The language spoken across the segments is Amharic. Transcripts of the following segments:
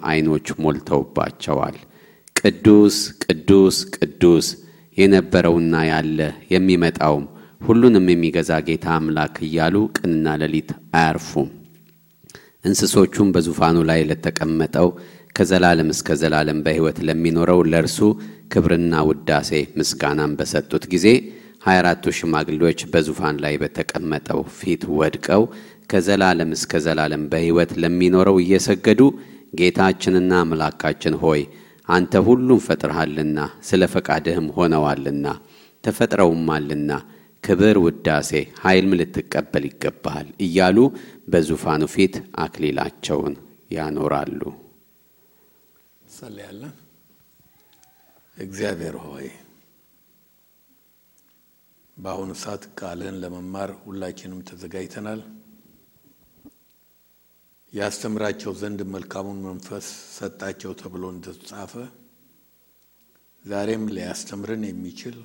አይኖች ሞልተውባቸዋል። ቅዱስ ቅዱስ ቅዱስ የነበረውና ያለ የሚመጣው ሁሉንም የሚገዛ ጌታ አምላክ እያሉ ቀንና ሌሊት አያርፉም። እንስሶቹም በዙፋኑ ላይ ለተቀመጠው ከዘላለም እስከ ዘላለም በሕይወት ለሚኖረው ለእርሱ ክብርና ውዳሴ ምስጋናን በሰጡት ጊዜ 24ቱ ሽማግሌዎች በዙፋን ላይ በተቀመጠው ፊት ወድቀው ከዘላለም እስከ ዘላለም በሕይወት ለሚኖረው እየሰገዱ ጌታችንና አምላካችን ሆይ አንተ ሁሉን ፈጥረሃልና ስለ ፈቃድህም ሆነዋልና ተፈጥረውማልና ክብር ውዳሴ ኃይልም ልትቀበል ይገባል እያሉ በዙፋኑ ፊት አክሊላቸውን ያኖራሉ። ሰለላሁ እግዚአብሔር ሆይ በአሁኑ ሰዓት ቃልን ለመማር ሁላችንም ተዘጋጅተናል። ያስተምራቸው ዘንድ መልካሙን መንፈስ ሰጣቸው ተብሎ እንደተጻፈ ዛሬም ሊያስተምረን የሚችል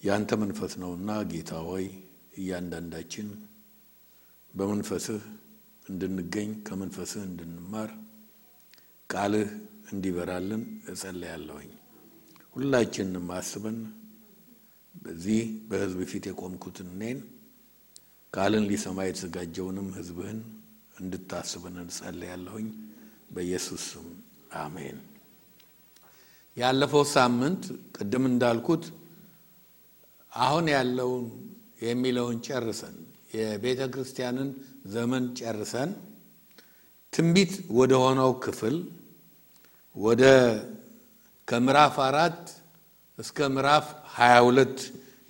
ያንተ መንፈስ ነውና ጌታ ሆይ እያንዳንዳችን በመንፈስህ እንድንገኝ ከመንፈስህ እንድንማር ቃልህ እንዲበራልን እጸልያለሁ። ሁላችንም አስበን በዚህ በሕዝብ ፊት የቆምኩትን እኔን ቃልን ሊሰማ የተዘጋጀውንም ሕዝብህን እንድታስበን እጸልያለሁ በኢየሱስ ስም አሜን። ያለፈው ሳምንት ቅድም እንዳልኩት አሁን ያለውን የሚለውን ጨርሰን የቤተ ክርስቲያንን ዘመን ጨርሰን ትንቢት ወደ ሆነው ክፍል ወደ ከምዕራፍ 4 እስከ ምዕራፍ 22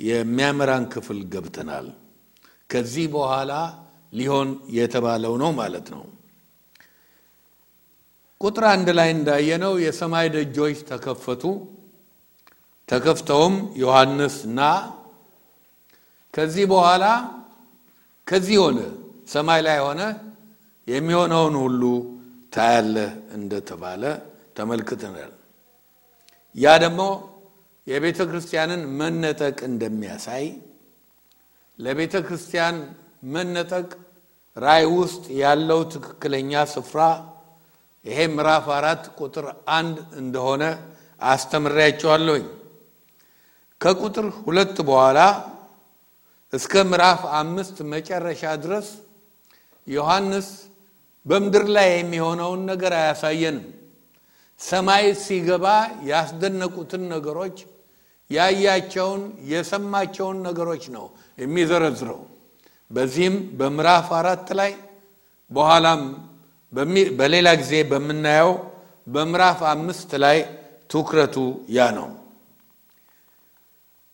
የሚያመራን ክፍል ገብተናል። ከዚህ በኋላ ሊሆን የተባለው ነው ማለት ነው። ቁጥር 1 ላይ እንዳየነው የሰማይ ደጆች ተከፈቱ። ተከፍተውም ዮሐንስና ከዚህ በኋላ ከዚህ ሆነ ሰማይ ላይ ሆነ የሚሆነውን ሁሉ ታያለህ እንደተባለ ተመልክተናል። ያ ደግሞ የቤተ ክርስቲያንን መነጠቅ እንደሚያሳይ ለቤተ ክርስቲያን መነጠቅ ራእይ ውስጥ ያለው ትክክለኛ ስፍራ ይሄ ምዕራፍ 4 ቁጥር 1 እንደሆነ አስተምሬያችኋለሁ። ከቁጥር 2 በኋላ እስከ ምዕራፍ 5 መጨረሻ ድረስ ዮሐንስ በመድር ላይ የሚሆነውን ነገር አያሳየንም። ሰማይ ሲገባ ያስደነቁትን ነገሮች ያያቸውን የሰማቸውን ነገሮች ነው የሚዘረዝረው። በዚህም በምዕራፍ 4 ላይ በኋላም በሌላ ጊዜ በመናየው በምዕራፍ 5 ላይ ትኩረቱ ያ ነው።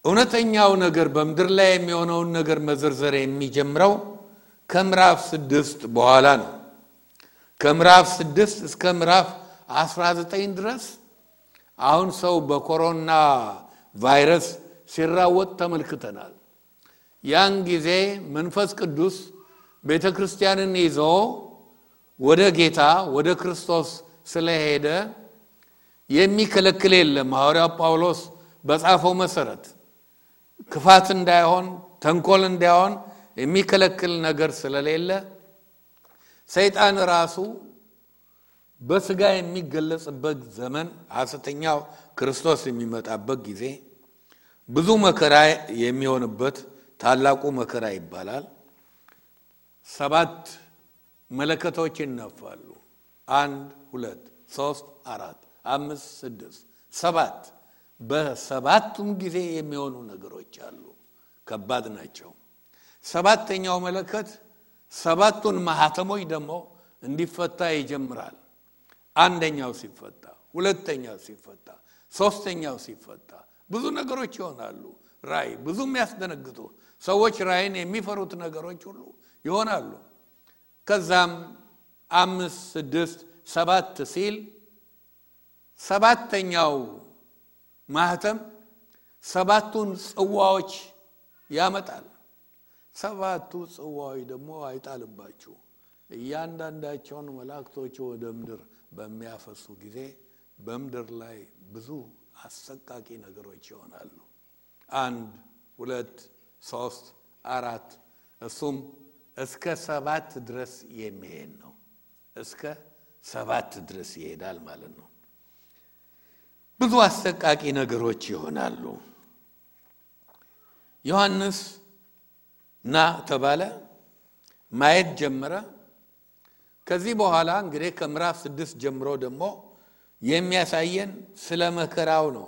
እውነተኛው ነገር በመድር ላይ የሚሆነውን ነገር መዘርዘር የሚጀምረው ከምዕራፍ 6 በኋላ ነው። ከምዕራፍ 6 እስከ ምዕራፍ 19 ድረስ አሁን ሰው በኮሮና ቫይረስ ሲራወጥ ተመልክተናል። ያን ጊዜ መንፈስ ቅዱስ ቤተክርስቲያንን ይዞ ወደ ጌታ ወደ ክርስቶስ ስለሄደ የሚከለክል የለም። ሐዋርያው ጳውሎስ በጻፈው መሰረት ክፋት እንዳይሆን ተንኮል እንዳይሆን የሚከለክል ነገር ስለሌለ ሰይጣን ራሱ በስጋ የሚገለጽበት ዘመን ሐሰተኛው ክርስቶስ የሚመጣበት ጊዜ ብዙ መከራ የሚሆንበት ታላቁ መከራ ይባላል። 7 መለከቶች ይነፋሉ። 1 2 3 4 5 6 7 በሰባቱም ጊዜ የሚሆኑ ነገሮች አሉ። ከባድ ናቸው። 7ኛው መለከት 7ቱን ማህተሞች ደግሞ እንዲፈታ ይጀምራል። አንደኛው ሲፈታ፣ ሁለተኛው ሲፈታ፣ ሶስተኛው ሲፈታ ብዙ ነገሮች ይሆናሉ። ራእይ ብዙ የሚያስደነግጡ ሰዎች ራእይን የሚፈሩት ነገሮች ሁሉ ይሆናሉ። ከዛም 5 6 7 ሲል 7ኛው ማህተም 7ቱን ጽዋዎች ያመጣል። 7ቱ ጽዋዎች ደግሞ አይጣልባችሁ እያንዳንዳቸውን መላእክቶች ወደ ምድር በሚያፈሱ ጊዜ በምድር ላይ ብዙ አሰቃቂ ነገሮች ይሆናሉ። 1 2 3 4 እሱም እስከ 7 ድረስ የሚሄድ ነው። እስከ 7 ድረስ ይሄዳል ማለት ነው። ብዙ አሰቃቂ ነገሮች ይሆናሉ። ዮሐንስ ና ተባለ፣ ማየት ጀመረ። ከዚህ በኋላ እንግዲህ ከምዕራፍ 6 ጀምሮ ደግሞ የሚያሳየን ስለ መከራው ነው።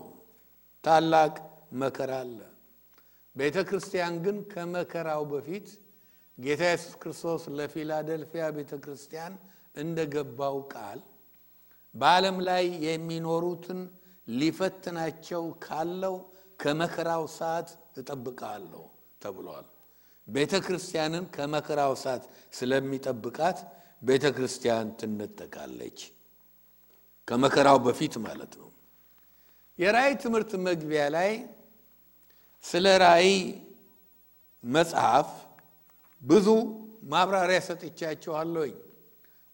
ታላቅ መከራ አለ። ቤተክርስቲያን ግን ከመከራው በፊት ጌታ ኢየሱስ ክርስቶስ ለፊላደልፊያ ቤተክርስቲያን እንደገባው ቃል በዓለም ላይ የሚኖሩትን ሊፈትናቸው ካለው ከመከራው ሰዓት እጠብቃለሁ ተብሏል። ቤተክርስቲያንን ከመከራው ሰዓት ስለሚጠብቃት ቤተክርስቲያን ትነጠቃለች፣ ከመከራው በፊት ማለት ነው። የራእይ ትምህርት መግቢያ ላይ ስለ ራእይ መጽሐፍ ብዙ ማብራሪያ ሰጥቻችኋለሁ።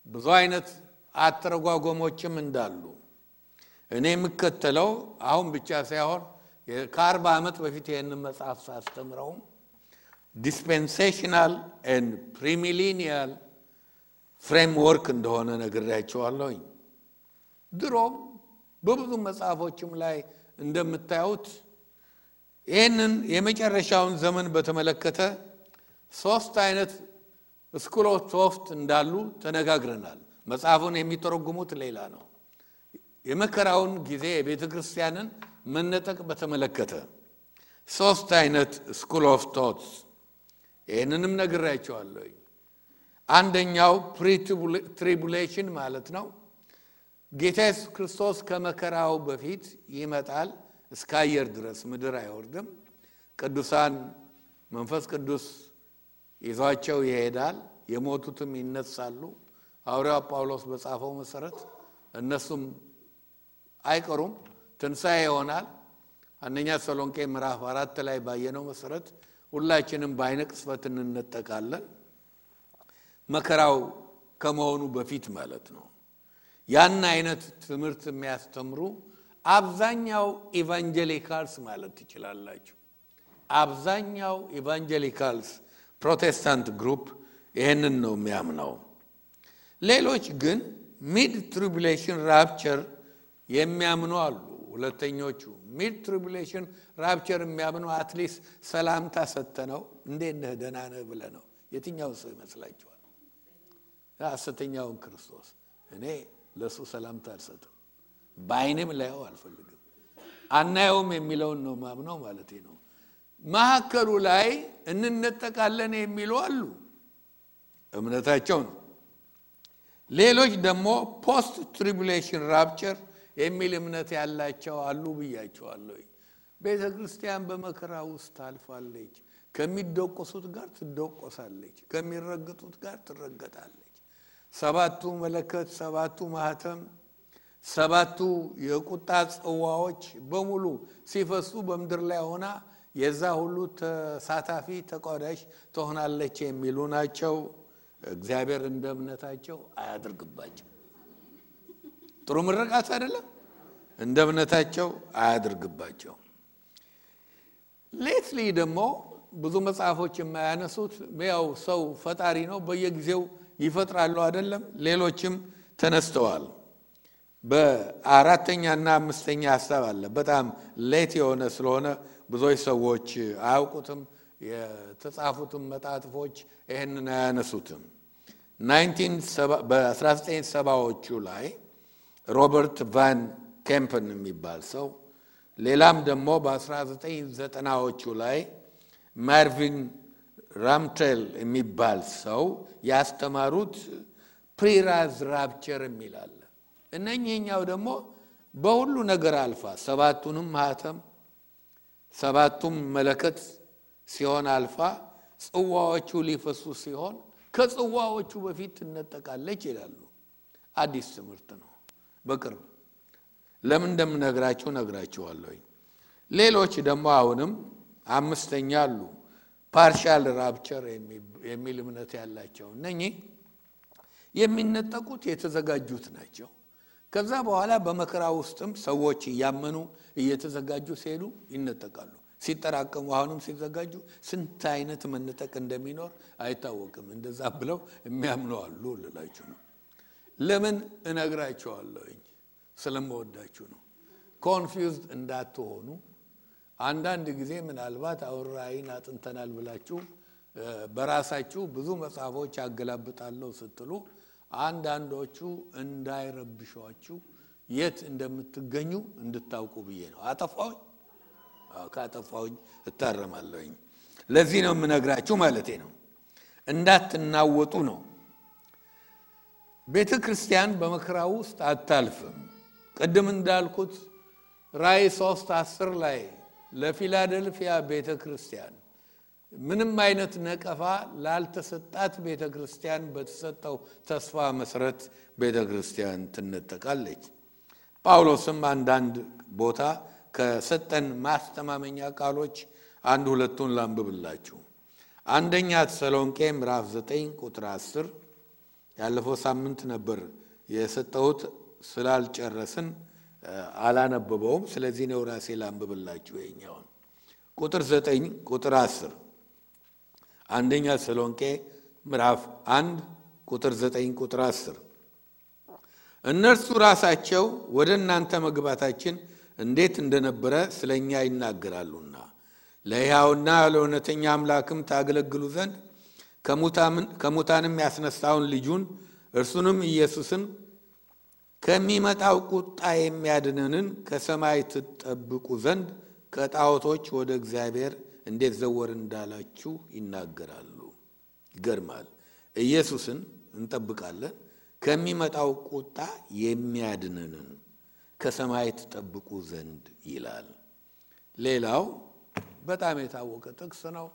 ብዙ አይነት አተረጓጎሞችም እንዳሉ እኔ የምከተለው አሁን ብቻ ሳይሆን ከ40 ዓመት በፊት ይሄንን መጽሐፍ ሳስተምረው ዲስፔንሴሽናል ኤንድ ፕሪሚሊኒያል ፍሬምወርክ እንደሆነ ነግሬያችኋለሁ። ድሮም በብዙ መጽሐፎችም ላይ እንደምታዩት ይሄንን የመጨረሻውን ዘመን በተመለከተ 3 አይነት ስኩል ኦፍ ቶፍት እንዳሉ ተነጋግረናል። መጽሐፉን የሚተረጉሙት ሌላ ነው። የመከራውን ጊዜ የቤተክርስቲያንን መነጠቅ በተመለከተ 3 አይነት ስኩል ኦፍ ቶትስ ይሄንንም ነግሬያችኋለሁ። አንደኛው ፕሪ-ትሪቡሌሽን ማለት ነው። ጌታ ኢየሱስ ክርስቶስ ከመከራው በፊት ይመጣል፣ እስከ አየር ድረስ ምድር አይወርድም። ቅዱሳን መንፈስ ቅዱስ ይዟቸው ይሄዳል፣ የሞቱትም ይነሳሉ። ሐዋርያው ጳውሎስ በጻፈው መሰረት እነሱም አይቀሩም፣ ትንሣኤ ይሆናል። አንደኛ ተሰሎንቄ ምዕራፍ 4 ላይ ባየነው መሰረት ሁላችንም በዓይነ ቅጽበት እንነጠቃለን፣ መከራው ከመሆኑ በፊት ማለት ነው። ያን አይነት ትምህርት የሚያስተምሩ አብዛኛው ኢቫንጀሊካልስ ማለት ትችላላችሁ። አብዛኛው ኢቫንጀሊካልስ ፕሮቴስታንት ግሩፕ ይሄንን ነው የሚያምነው። ሌሎች ግን ሚድ ትሪቡሌሽን ራፕቸር የሚያምኑ አሉ። ሁለተኞቹ ሚድ ትሪቡሌሽን ራፕቸር የሚያምኑ አትሊስት ሰላምታ ሰተነው እንዴት ነህ ደህና ነህ ብለህ ነው። የትኛው ሰው ይመስላችኋል? ሐሰተኛውን ክርስቶስ እኔ ለሱ ሰላምታ አልሰጥም፣ በዓይኔም ላየው አልፈልግም፣ አናየውም የሚለውን ነው ማምነው ማለት ነው። ማዕከሉ ላይ እንነጠቃለን የሚሉ አሉ፣ እምነታቸው ነው። ሌሎች ደግሞ ፖስት ትሪቡሌሽን ራፕቸር የሚል እምነት ያላቸው አሉ ብያቸዋለሁ። ቤተክርስቲያን በመከራ ውስጥ ታልፋለች። ከሚደቆሱት ጋር ትደቆሳለች፣ ከሚረግጡት ጋር ትረገጣለች። 7ቱ መለከት፣ 7ቱ ማህተም፣ 7ቱ የቁጣ ጽዋዎች በሙሉ ሲፈሱ በምድር ላይ ሆና የዛ ሁሉ ተሳታፊ ተቋዳሽ ትሆናለች የሚሉ ናቸው። እግዚአብሔር እንደ እምነታቸው አያድርግባቸው። ጥሩ ምርቃት አይደለም? እንደ እምነታቸው አያድርግባቸው። ሌትሊ ደግሞ ብዙ መጽሐፎች የማያነሱት ያው ሰው ፈጣሪ ነው፣ በየጊዜው ይፈጥራሉ አይደለም? ሌሎችም ተነስተዋል። በአራተኛና አምስተኛ ሐሳብ አለ። በጣም ሌት የሆነ ስለሆነ ብዙዎች ሰዎች አያውቁትም። የተጻፉትም መጣጥፎች ይሄንን አያነሱትም። በ1970ዎቹ ላይ ሮበርት ቫን ኬምፐን የሚባል ሰው፣ ሌላም ደግሞ በ1990ዎቹ ላይ ማርቪን ራምቴል የሚባል ሰው ያስተማሩት ፕሪራዝ ራፕቸር የሚላል። እነኚህኛው ደግሞ በሁሉ ነገር አልፋ 7ቱንም ማህተም 7ቱም መለከት ሲሆን አልፋ ጽዋዎቹ ሊፈሱ ሲሆን ከጽዋዎቹ በፊት ትነጠቃለች ይላሉ። አዲስ ትምህርት ነው። በቅርብ ለምን እንደምነግራችሁ ነግራችኋለሁ። ሌሎች ደግሞ አሁንም አምስተኛ አሉ፣ ፓርሻል ራፕቸር የሚል እምነት ያላቸው። እነኚህ የሚነጠቁት የተዘጋጁት ናቸው። ከዛ በኋላ በመከራ ውስጥም ሰዎች እያመኑ እየተዘጋጁ ሲሄዱ ይነጠቃሉ። ሲጠራቀሙ አሁንም ሲዘጋጁ ስንት አይነት መነጠቅ እንደሚኖር አይታወቅም። እንደዛ ብለው የሚያምኑ አሉ ልላችሁ ነው። ለምን እነግራችኋለሁ? ስለምወዳችሁ ነው። ኮንፊውዝድ እንዳትሆኑ። አንዳንድ ጊዜ ምናልባት አውራይን አጥንተናል ብላችሁ በራሳችሁ ብዙ መጽሐፎች አገላብጣለሁ ስትሉ አንዳንዶቹ እንዳይረብሿችሁ የት እንደምትገኙ እንድታውቁ ብዬ ነው። አጠፋው ካጠፋውኝ እታረማለሁ። ለዚህ ነው የምነግራችሁ ማለቴ ነው። እንዳትናወጡ ነው። ቤተ ክርስቲያን በመከራው ውስጥ አታልፍም። ቅድም እንዳልኩት ራእይ 3:10 ላይ ለፊላደልፊያ ቤተ ክርስቲያን ምንም አይነት ነቀፋ ላልተሰጣት ቤተ ክርስቲያን በተሰጠው ተስፋ መሰረት ቤተ ክርስቲያን ትነጠቃለች። ጳውሎስም አንዳንድ ቦታ ከሰጠን ማስተማመኛ ቃሎች አንድ ሁለቱን ላንብብላችሁ። አንደኛ ተሰሎንቄ ምዕራፍ 9 ቁጥር 10 ያለፈው ሳምንት ነበር የሰጠሁት ስላልጨረስን አላነበበውም። ስለዚህ ነው ራሴ ላንብብላችሁ ይሄኛውን ቁጥር 9 ቁጥር 10 አንደኛ ተሰሎንቄ ምዕራፍ 1 ቁጥር 9 ቁጥር 10 እነርሱ ራሳቸው ወደ እናንተ መግባታችን እንዴት እንደነበረ ስለኛ ይናገራሉና ለሕያውና ለእውነተኛ አምላክም ታገለግሉ ዘንድ ከሙታንም ያስነሳውን ልጁን እርሱንም ኢየሱስን ከሚመጣው ቁጣ የሚያድነንን ከሰማይ ትጠብቁ ዘንድ ከጣዖቶች ወደ እግዚአብሔር እንዴት ዘወር እንዳላችሁ ይናገራሉ። ይገርማል። ኢየሱስን እንጠብቃለን፣ ከሚመጣው ቁጣ የሚያድነንን ከሰማይ ትጠብቁ ዘንድ ይላል። ሌላው በጣም የታወቀ ጥቅስ ነው።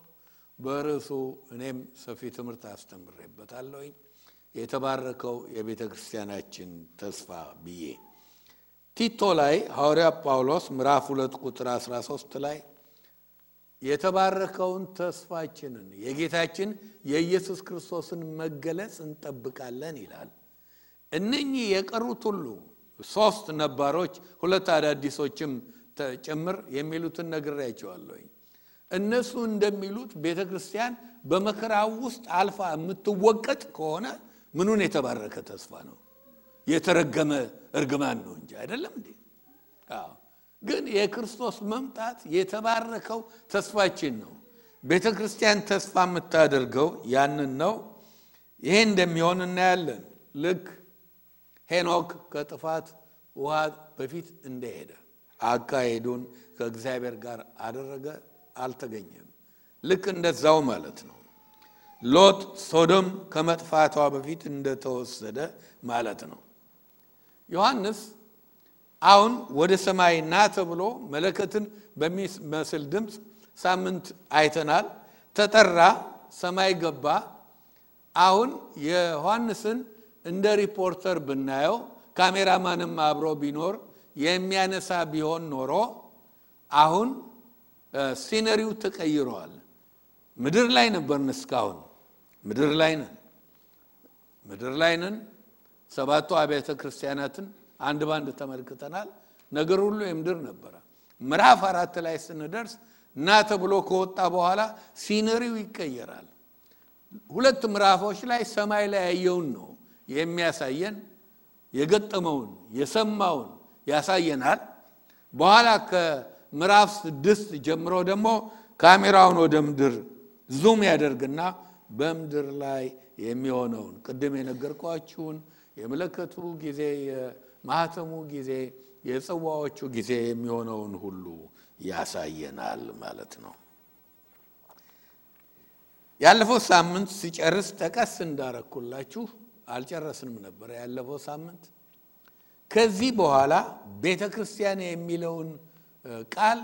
በርዕሱ እኔም ሰፊ ትምህርት አስተምሬበታለሁ። የተባረከው የቤተ ክርስቲያናችን ተስፋ ብዬ ቲቶ ላይ ሐዋርያ ጳውሎስ ምዕራፍ 2 ቁጥር 13 ላይ የተባረከውን ተስፋችንን የጌታችን የኢየሱስ ክርስቶስን መገለጽ እንጠብቃለን ይላል። እነኚህ የቀሩት ሁሉ 3 ነባሮች 2 አዳዲሶችም ጭምር የሚሉትን ነግሬያቸዋለሁ። እነሱ እንደሚሉት ቤተክርስቲያን በመከራው ውስጥ አልፋ የምትወቀጥ ከሆነ ምኑን የተባረከ ተስፋ ነው? የተረገመ እርግማን ነው እንጂ አይደለም እንዴ? ግን የክርስቶስ መምጣት የተባረከው ተስፋችን ነው። ቤተክርስቲያን ተስፋ የምታደርገው ያንን ነው። ይሄ እንደሚሆን እናያለን። ልክ ሄኖክ ከጥፋት ውሃ በፊት እንደሄደ አካሄዱን ከእግዚአብሔር ጋር አደረገ፣ አልተገኘም። ልክ እንደዛው ማለት ነው። ሎጥ ሶዶም ከመጥፋቷ በፊት እንደተወሰደ ማለት ነው። ዮሐንስ አሁን ወደ ሰማይ ና ተብሎ መለከትን በሚመስል ድምጽ ሳምንት አይተናል። ተጠራ፣ ሰማይ ገባ። አሁን የዮሐንስን እንደ ሪፖርተር ብናየው ካሜራማንም አብሮ ቢኖር የሚያነሳ ቢሆን ኖሮ አሁን ሲነሪው ተቀይሯል። ምድር ላይ ነበርን እስካሁን ምድር ላይ ነን። 7 አብያተ ክርስቲያናትን አንድ ባንድ ተመልክተናል። ነገር ሁሉ የምድር ነበር። ምዕራፍ 4 ላይ ስንደርስ ና ተብሎ ከወጣ በኋላ ሲነሪው ይቀየራል። 2 ምዕራፎች ላይ ሰማይ ላይ ያየውን ነው የሚያሳየን፣ የገጠመውን የሰማውን ያሳየናል። በኋላ ከምዕራፍ 6 ጀምሮ ደግሞ ካሜራውን ወደ ምድር ዙም ያደርግና በምድር ላይ የሚሆነውን ቅድም የነገርኳችሁን የመለከቱ ጊዜ፣ የማህተሙ ጊዜ፣ የጽዋዎቹ ጊዜ የሚሆነውን ሁሉ ያሳየናል ማለት ነው። ያለፈው ሳምንት ሲጨርስ ጠቀስ እንዳረኩላችሁ አልጨረስንም ነበር ያለፈው ሳምንት። ከዚህ በኋላ ቤተክርስቲያን የሚለውን ቃል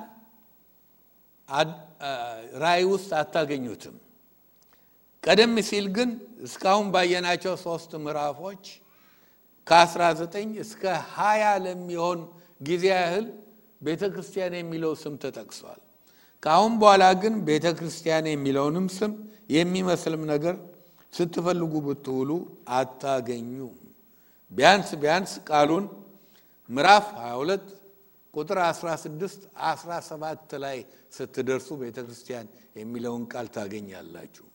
ራእይ ውስጥ አታገኙትም። ቀደም ሲል ግን እስካሁን ባየናቸው 3 ምዕራፎች ከ19 እስከ 20 ለሚሆን ጊዜ ያህል ቤተክርስቲያን የሚለው ስም ተጠቅሷል። ካሁን በኋላ ግን ቤተክርስቲያን የሚለውንም ስም የሚመስልም ነገር ስትፈልጉ ብትውሉ አታገኙም። ቢያንስ ቃሉን ምዕራፍ 22 ቁጥር 16 17 ላይ ስትደርሱ ቤተክርስቲያን የሚለውን ቃል ታገኛላችሁ።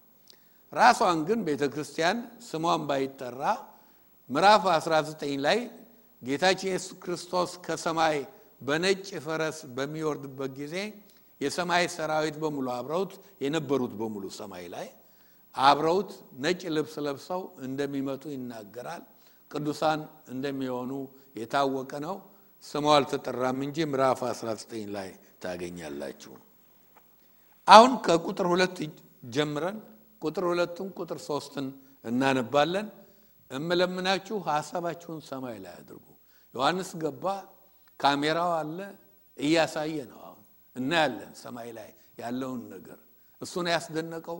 ራሷን ግን ቤተክርስቲያን ስሟን ባይጠራ ምዕራፍ 19 ላይ ጌታችን ኢየሱስ ክርስቶስ ከሰማይ በነጭ ፈረስ በሚወርድበት ጊዜ የሰማይ ሰራዊት በሙሉ አብረውት የነበሩት በሙሉ ሰማይ ላይ አብረውት ነጭ ልብስ ለብሰው እንደሚመጡ ይናገራል። ቅዱሳን እንደሚሆኑ የታወቀ ነው። ስሙ አልተጠራም እንጂ ምዕራፍ 19 ላይ ታገኛላችሁ። አሁን ከቁጥር 2 ጀምረን ቁጥር 2ን ቁጥር 3ን እናነባለን። እምለምናችሁ ሐሳባችሁን ሰማይ ላይ አድርጉ። ዮሐንስ ገባ፣ ካሜራው አለ፣ እያሳየ ነው። አሁን እናያለን ሰማይ ላይ ያለውን ነገር። እሱን ያስደነቀው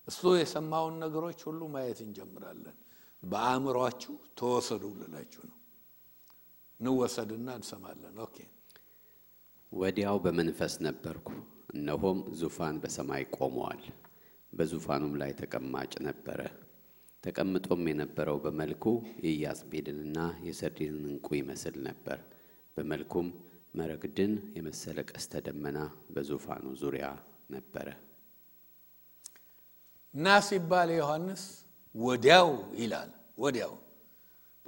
እሱ የሰማውን ነገሮች ሁሉ ማየት እንጀምራለን። በአእምሮአችሁ ተወሰዱ ልላችሁ ነው። እንወሰድና እንሰማለን። ኦኬ። ወዲያው በመንፈስ ነበርኩ፣ እነሆም ዙፋን በሰማይ ቆመዋል፣ በዙፋኑም ላይ ተቀማጭ ነበረ። ተቀምጦም የነበረው በመልኩ የኢያስጲድንና የሰርዲንን ዕንቁ ይመስል ነበር። በመልኩም መረግድን የመሰለ ቀስተ ደመና በዙፋኑ ዙሪያ ነበረ። ና ሲባል ዮሐንስ ወዲያው ይላል። ወዲያው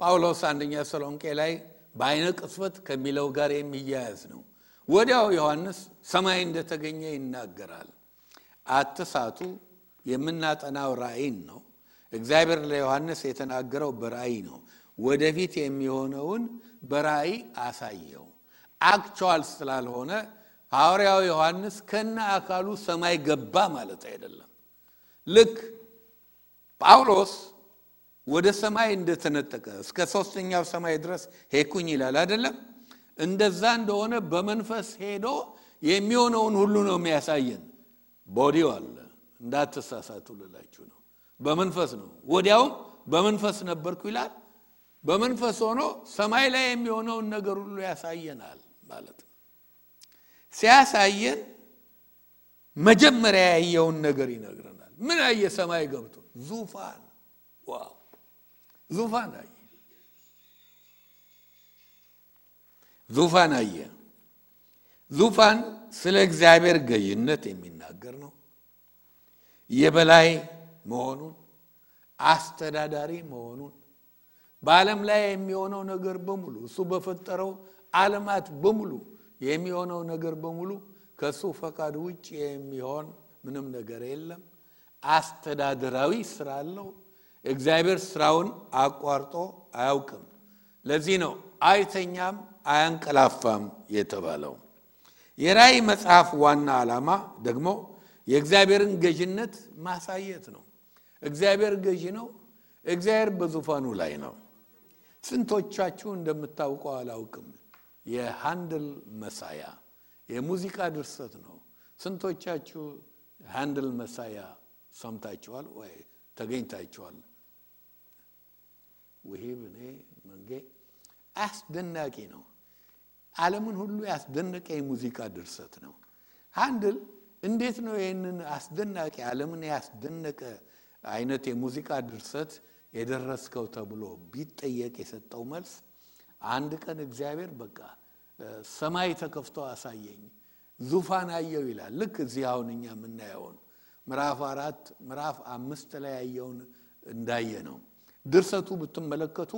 ጳውሎስ አንደኛ ተሰሎንቄ ላይ በአይነ ቅጽበት ከሚለው ጋር የሚያያዝ ነው። ወዲያው ዮሐንስ ሰማይ እንደተገኘ ይናገራል። አትሳቱ፣ የምናጠናው ራእይን ነው። እግዚአብሔር ለዮሐንስ የተናገረው በራእይ ነው። ወደፊት የሚሆነውን በራእይ አሳየው። አክቹዋል ስላልሆነ ሐዋርያው ዮሐንስ ከነ አካሉ ሰማይ ገባ ማለት አይደለም። ልክ ጳውሎስ ወደ ሰማይ እንደተነጠቀ እስከ 3ኛው ሰማይ ድረስ ሄድኩኝ ይላል አይደለም? እንደዛ እንደሆነ በመንፈስ ሄዶ የሚሆነውን ሁሉ ነው የሚያሳየን። ቦዲው አለ፣ እንዳትሳሳቱ ልላችሁ ነው። በመንፈስ ነው። ወዲያውም በመንፈስ ነበርኩ ይላል። በመንፈስ ሆኖ ሰማይ ላይ የሚሆነውን ነገር ሁሉ ያሳየናል ማለት ነው። ሲያሳየን መጀመሪያ ያየውን ነገር ይነግረናል። ምን አየ? ሰማይ ገብቶ ዙፋን። ዋው! ዙፋን አየ። ዙፋን አየ። ዙፋን ስለ እግዚአብሔር ገዥነት የሚናገር ነው። የበላይ መሆኑን፣ አስተዳዳሪ መሆኑን፣ በዓለም ላይ የሚሆነው ነገር በሙሉ እሱ በፈጠረው ዓለማት በሙሉ የሚሆነው ነገር በሙሉ ከሱ ፈቃድ ውጭ የሚሆን ምንም ነገር የለም። አስተዳደራዊ ስራ አለው። እግዚአብሔር ስራውን አቋርጦ አያውቅም። ለዚህ ነው አይተኛም አያንቀላፋም የተባለው። የራእይ መጽሐፍ ዋና ዓላማ ደግሞ የእግዚአብሔርን ገዥነት ማሳየት ነው። እግዚአብሔር ገዥ ነው። እግዚአብሔር በዙፋኑ ላይ ነው። ስንቶቻችሁ እንደምታውቀው አላውቅም፣ የሃንደል መሳያ የሙዚቃ ድርሰት ነው። ስንቶቻችሁ ሃንደል መሳያ ሰምታችኋል ወይ ተገኝታችኋል? ወሂብኔ መንጌ አስደናቂ ነው። ዓለምን ሁሉ ያስደነቀ የሙዚቃ ድርሰት ነው። ሃንደል እንዴት ነው ይሄንን አስደናቂ ዓለምን ያስደነቀ አይነት የሙዚቃ ድርሰት የደረስከው ተብሎ ቢጠየቅ የሰጠው መልስ አንድ ቀን እግዚአብሔር በቃ ሰማይ ተከፍቶ አሳየኝ፣ ዙፋን አየው ይላል። ልክ እዚህ አሁን እኛ የምናየውን ምዕራፍ 4 ምዕራፍ 5 ላይ ያየውን እንዳየ ነው። ድርሰቱ ብትመለከቱ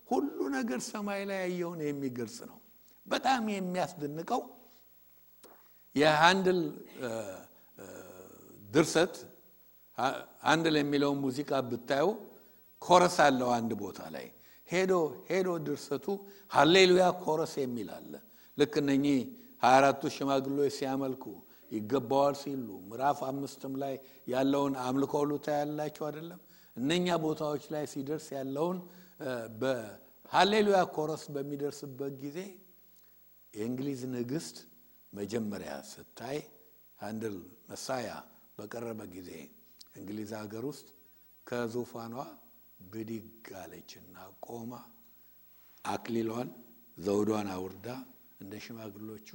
ሁሉ ነገር ሰማይ ላይ ያየውን የሚገልጽ ነው። በጣም የሚያስደንቀው የሃንደል ድርሰት ሃንደል የሚለው ሙዚቃ ብታዩ ኮረስ አለው አንድ ቦታ ላይ ሄዶ ድርሰቱ ሃሌሉያ ኮረስ የሚል አለ። ልክ እነኚህ 24ቱ ሽማግሌዎች ሲያመልኩ ይገባዋል ሲሉ ምዕራፍ 5ም ላይ ያለውን አምልኮ ሁሉ ታያላችሁ አይደለም? እነኛ ቦታዎች ላይ ሲደርስ ያለውን በሃሌሉያ ኮረስ በሚደርስበት ጊዜ የእንግሊዝ ንግስት መጀመሪያ ስታይ ሃንደል መሳያ በቀረበ ጊዜ እንግሊዝ ሀገር ውስጥ ከዙፋኗ ብድግ አለችና ቆማ አክሊሏን ዘውዷን አውርዳ እንደ ሽማግሌዎቹ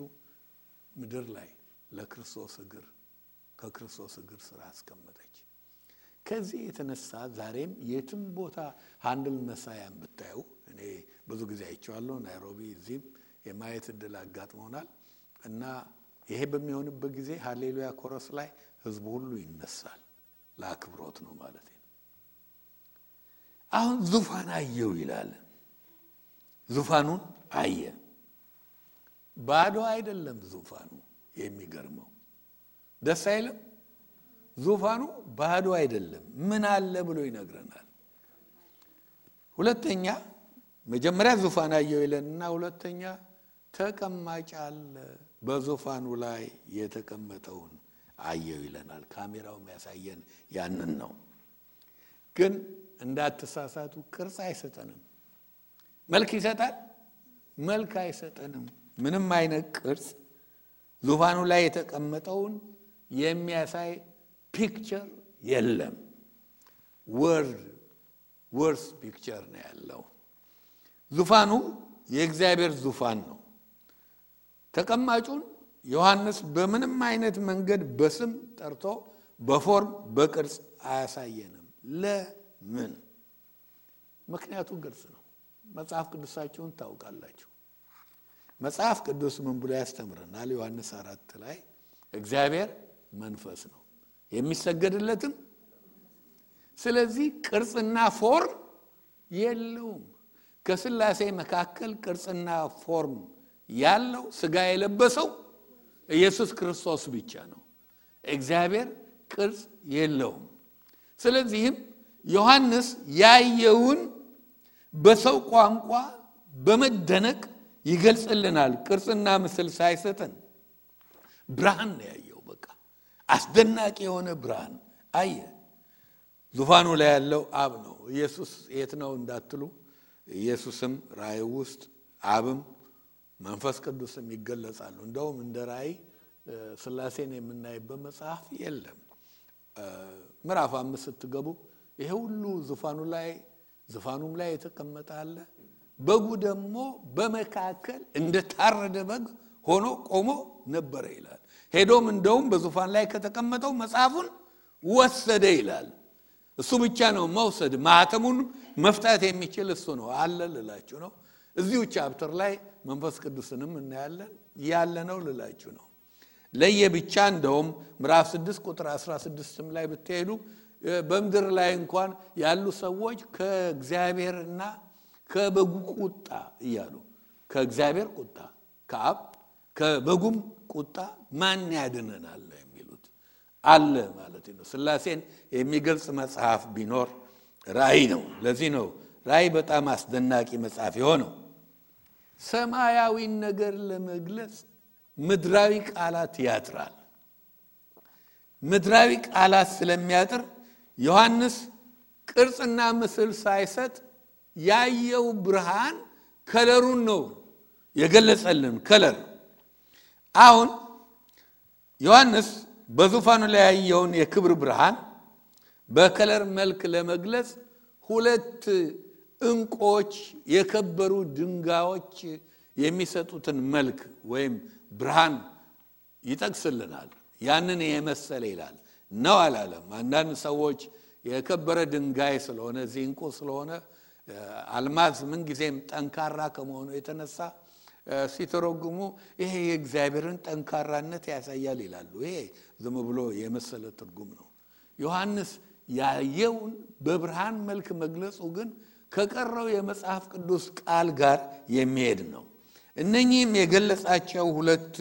ምድር ላይ ለክርስቶስ እግር ከክርስቶስ እግር ስራ አስቀመጠች። ከዚህ የተነሳ ዛሬም የትም ቦታ ሃንደል መሳያን ብታዩ፣ እኔ ብዙ ጊዜ አይቼዋለሁ፣ ናይሮቢ እዚህም የማየት እድል አጋጥሞናል። እና ይሄ በሚሆንበት ጊዜ ሃሌሉያ ኮረስ ላይ ህዝቡ ሁሉ ይነሳል። ለአክብሮት ነው ማለት ነው። አሁን ዙፋን አየው ይላል። ዙፋኑን አየ። ባዶ አይደለም ዙፋኑ። የሚገርመው ደስ አይልም? ዙፋኑ ባዶ አይደለም። ምን አለ ብሎ ይነግረናል። ሁለተኛ መጀመሪያ ዙፋን አየው ይለንና ሁለተኛ ተቀማጭ አለ። በዙፋኑ ላይ የተቀመጠውን አየው ይለናል። ካሜራው የሚያሳየን ያንን ነው። ግን እንዳትሳሳቱ ቅርጽ አይሰጠንም። መልክ ይሰጣል? መልክ አይሰጠንም። ምንም አይነት ቅርጽ ዙፋኑ ላይ የተቀመጠውን የሚያሳይ ፒክቸር የለም። ወርስ ፒክቸር ነው ያለው። ዙፋኑ የእግዚአብሔር ዙፋን ነው። ተቀማጩን ዮሐንስ በምንም አይነት መንገድ በስም ጠርቶ በፎርም በቅርጽ አያሳየንም። ለምን? ምክንያቱ ግልጽ ነው። መጽሐፍ ቅዱሳችሁን ታውቃላችሁ። መጽሐፍ ቅዱስ ምን ብሎ ያስተምረናል? ዮሐንስ 4 ላይ እግዚአብሔር መንፈስ ነው የሚሰገድለትም። ስለዚህ ቅርጽና ፎርም የለውም። ከሥላሴ መካከል ቅርጽና ፎርም ያለው ሥጋ የለበሰው ኢየሱስ ክርስቶስ ብቻ ነው። እግዚአብሔር ቅርጽ የለውም። ስለዚህም ዮሐንስ ያየውን በሰው ቋንቋ በመደነቅ ይገልጽልናል። ቅርጽና ምስል ሳይሰጠን ብርሃን ነው ያየው። በቃ አስደናቂ የሆነ ብርሃን አየ። ዙፋኑ ላይ ያለው አብ ነው። ኢየሱስ የት ነው እንዳትሉ፣ ኢየሱስም ራእይ ውስጥ አብም መንፈስ ቅዱስም ይገለጻሉ። እንደውም እንደ ራእይ ሥላሴን የምናይበት መጽሐፍ የለም። ምዕራፍ 5 ስትገቡ ይሄ ሁሉ ዙፋኑም ላይ የተቀመጠ አለ። በጉ ደግሞ በመካከል እንደ ታረደ በግ ሆኖ ቆሞ ነበር ይላል። ሄዶም እንደውም በዙፋን ላይ ከተቀመጠው መጽሐፉን ወሰደ ይላል። እሱ ብቻ ነው መውሰድ፣ ማህተሙን መፍታት የሚችል እሱ ነው አለ ልላችሁ ነው። እዚሁ ቻፕተር ላይ መንፈስ ቅዱስንም እናያለን ያለ ነው ልላችሁ ነው። ለየብቻ እንደውም ምዕራፍ 6 ቁጥር 16 ላይ ብትሄዱ በመድር ላይ እንኳን ያሉ ሰዎች ከእግዚአብሔርና ከበጉ ቁጣ እያሉ ከእግዚአብሔር ቁጣ ከአብ ከበጉም ቁጣ ማን ያድነናል የሚሉት አለ ማለት ነው። ሥላሴን የሚገልጽ መጽሐፍ ቢኖር ራእይ ነው። ለዚህ ነው ራእይ በጣም አስደናቂ መጽሐፍ የሆነው። ሰማያዊ ነገር ለመግለጽ ምድራዊ ቃላት ያጥራል። ምድራዊ ቃላት ስለሚያጥር ዮሐንስ ቅርጽና ምስል ሳይሰጥ ያየው ብርሃን ከለሩን ነው የገለጸልን። ከለር አሁን ዮሐንስ በዙፋኑ ላይ ያየውን የክብር ብርሃን በከለር መልክ ለመግለጽ ሁለት እንቆች የከበሩ ድንጋዮች የሚሰጡትን መልክ ወይም ብርሃን ይጠቅስልናል። ያንን የመሰለ ይላል ነው አላለም። አንዳንድ ሰዎች የከበረ ድንጋይ ስለሆነ እንቁ ስለሆነ አልማዝ ምን ጊዜም ጠንካራ ከመሆኑ የተነሳ ሲተረጉሙ ይሄ የእግዚአብሔርን ጠንካራነት ያሳያል ይላሉ። ይሄ ዝም ብሎ የመሰለ ትርጉም ነው። ዮሐንስ ያየውን በብርሃን መልክ መግለጹ ግን ከቀረው የመጽሐፍ ቅዱስ ቃል ጋር የሚሄድ ነው። እነኚህም የገለጻቸው ሁለት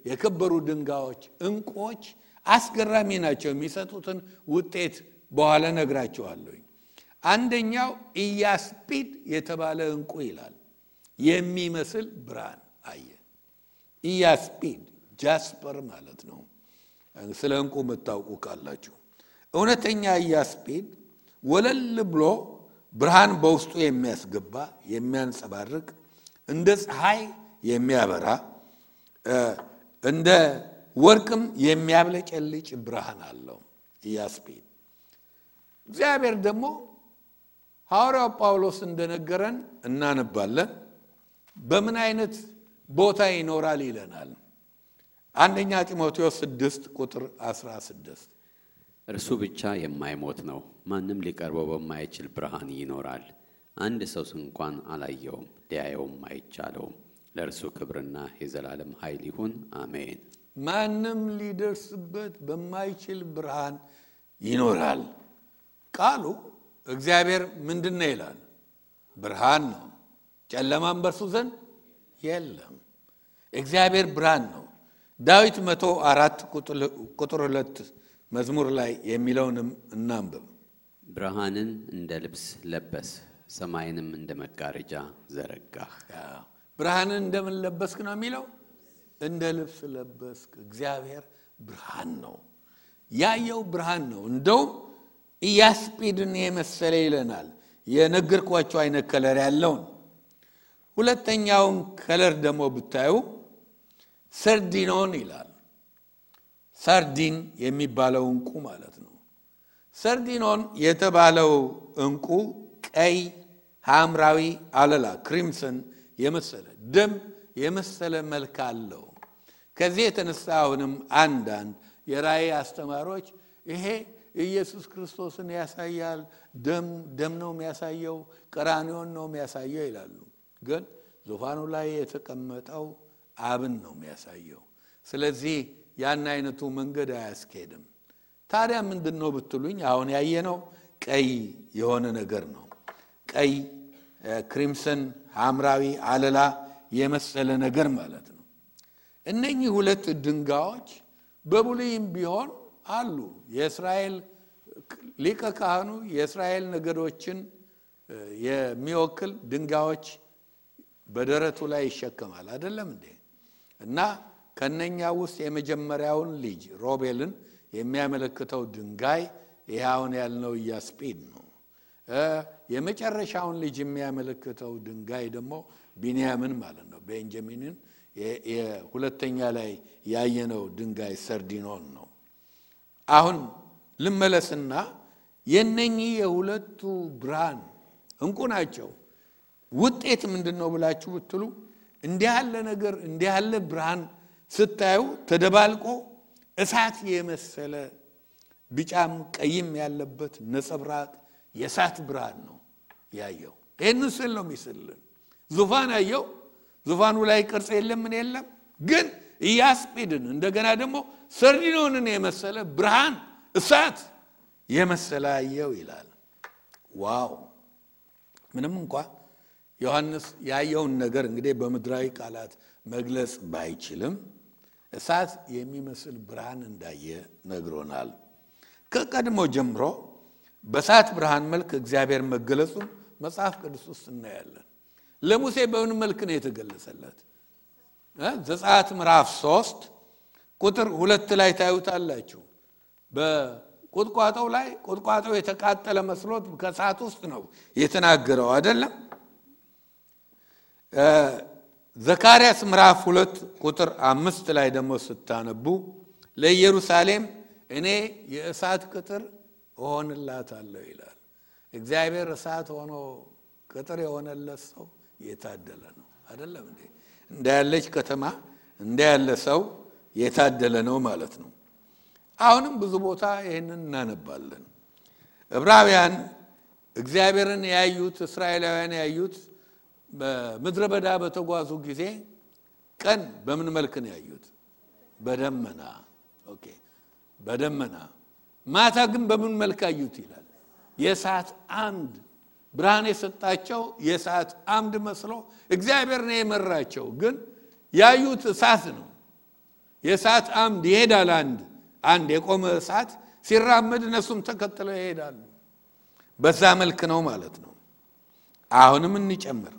የከበሩ ድንጋዮች እንቆች አስገራሚ ናቸው። የሚሰጡትን ውጤት በኋላ ነግራቸዋለሁ። አንደኛው ኢያስጲድ የተባለ እንቁ ይላል የሚመስል ብርሃን አየ። ኢያስጲድ ጃስፐር ማለት ነው። ስለ እንቁ መታወቁ ካላችሁ እውነተኛ ኢያስጲድ ወለል ብሎ ብርሃን በውስጡ የሚያስገባ የሚያንጸባርቅ እንደ ፀሐይ የሚያበራ እንደ ወርቅም የሚያብለጨልጭ ብርሃን አለው ኢያስጲድ። እግዚአብሔር ደግሞ ሐዋርያው ጳውሎስ እንደነገረን እናነባለን። በምን አይነት ቦታ ይኖራል ይለናል። አንደኛ ጢሞቴዎስ 6 ቁጥር 16 እርሱ ብቻ የማይሞት ነው፣ ማንም ሊቀርበው በማይችል ብርሃን ይኖራል። አንድ ሰው እንኳን አላየውም፣ ሊያየውም አይቻለውም። ለእርሱ ክብርና የዘላለም ኃይል ይሁን፣ አሜን። ማንም ሊደርስበት በማይችል ብርሃን ይኖራል። ቃሉ እግዚአብሔር ምንድነው ይላል? ብርሃን ነው፣ ጨለማም በርሱ ዘንድ የለም። እግዚአብሔር ብርሃን ነው። ዳዊት 104 ቁጥር 2 መዝሙር ላይ የሚለውንም እናንብብ። ብርሃንን እንደ ልብስ ለበስ፣ ሰማይንም እንደ መጋረጃ ዘረጋህ። ብርሃንን እንደምን ለበስክ ነው የሚለው? እንደ ልብስ ለበስክ። እግዚአብሔር ብርሃን ነው። ያየው ብርሃን ነው። እንደውም ኢያስጲድን የመሰለ ይለናል። የነገርኳቸው አይነት ከለር ያለውን። ሁለተኛውን ከለር ደግሞ ብታዩ ሰርዲኖን ይላል። ሳርዲን የሚባለው እንቁ ማለት ነው። ሰርዲኖን የተባለው እንቁ ቀይ ሐምራዊ አለላ ክሪምሰን የመሰለ ደም የመሰለ መልክ አለው። ከዚህ የተነሳ አሁንም አንዳንድ የራእይ አስተማሪዎች ይሄ ኢየሱስ ክርስቶስን ያሳያል፣ ደም ነው የሚያሳየው፣ ቀራንዮን ነው የሚያሳየው ይላሉ። ግን ዙፋኑ ላይ የተቀመጠው አብን ነው የሚያሳየው። ስለዚህ ያን አይነቱ መንገድ አያስኬድም። ታዲያ ምንድነው ብትሉኝ አሁን ያየነው ቀይ የሆነ ነገር ነው። ቀይ ክሪምሰን ሐምራዊ አለላ የመሰለ ነገር ማለት ነው። እነኚህ ሁለት ድንጋዮች በብሉይም ቢሆን አሉ። የእስራኤል ሊቀ ካህኑ የእስራኤል ነገዶችን የሚወክል ድንጋዮች በደረቱ ላይ ይሸከማል አይደለም እንዴ? እና ከነኛ ውስጥ የመጀመሪያውን ልጅ ሮቤልን የሚያመለክተው ድንጋይ ይሄውን ያልነው ኢያስጲድ ነው። የመጨረሻውን ልጅ የሚያመለክተው ድንጋይ ደግሞ ቢንያምን ማለት ነው። ቤንጃሚንን የሁለተኛ ላይ ያየነው ድንጋይ ሰርዲኖን ነው። አሁን ልመለስና የነኚህ የሁለቱ ብርሃን እንቁ ናቸው። ውጤት ምንድነው ብላችሁ ብትሉ እንዲህ ያለ ነገር እንዲህ ያለ ብርሃን ስታዩ ተደባልቆ እሳት የመሰለ ቢጫም ቀይም ያለበት ነጸብራቅ የእሳት ብርሃን ነው ያየው። ይሄንን ስል ነው የሚስልን። ዙፋን አየው። ዙፋኑ ላይ ቅርጽ የለም ምን የለም። ግን ኢያስጲድን እንደገና ደግሞ ሰርዲኖንን የመሰለ ብርሃን እሳት የመሰለ አየው ይላል። ዋው! ምንም እንኳን ዮሐንስ ያየውን ነገር እንግዲህ በምድራዊ ቃላት መግለጽ ባይችልም እሳት የሚመስል ብርሃን እንዳየ ነግሮናል። ከቀድሞ ጀምሮ በእሳት ብርሃን መልክ እግዚአብሔር መገለጹን መጽሐፍ ቅዱስ ውስጥ እናያለን። ለሙሴ በምን መልክ ነው የተገለጸለት? ዘጸአት ምዕራፍ 3 ቁጥር 2 ላይ ታዩታላችሁ። በቁጥቋጦው ላይ ቁጥቋጦው የተቃጠለ መስሎት ከእሳት ውስጥ ነው የተናገረው አይደለም? ዘካርያስ ምዕራፍ 2 ቁጥር 5 ላይ ደግሞ ስታነቡ ለኢየሩሳሌም እኔ የእሳት ቅጥር እሆንላታለሁ ይላል። እግዚአብሔር እሳት ሆኖ ቅጥር የሆነለት ሰው የታደለ ነው አይደለም እንዴ? እንዳያለች ከተማ እንዳያለ ሰው የታደለ ነው ማለት ነው። አሁንም ብዙ ቦታ ይሄንን እናነባለን። ዕብራውያን እግዚአብሔርን ያዩት እስራኤላውያን ያዩት በምድረ በዳ በተጓዙ ጊዜ ቀን በምን መልክ ነው ያዩት? በደመና። ኦኬ፣ በደመና። ማታ ግን በምን መልክ አዩት ይላል? የእሳት አምድ ብርሃን የሰጣቸው የእሳት አምድ መስሎ እግዚአብሔር ነው የመራቸው። ግን ያዩት እሳት ነው። የእሳት አምድ ይሄዳል። አንድ የቆመ እሳት ሲራመድ እነሱም ተከትለው ይሄዳሉ። በዛ መልክ ነው ማለት ነው። አሁንም እንጨምር።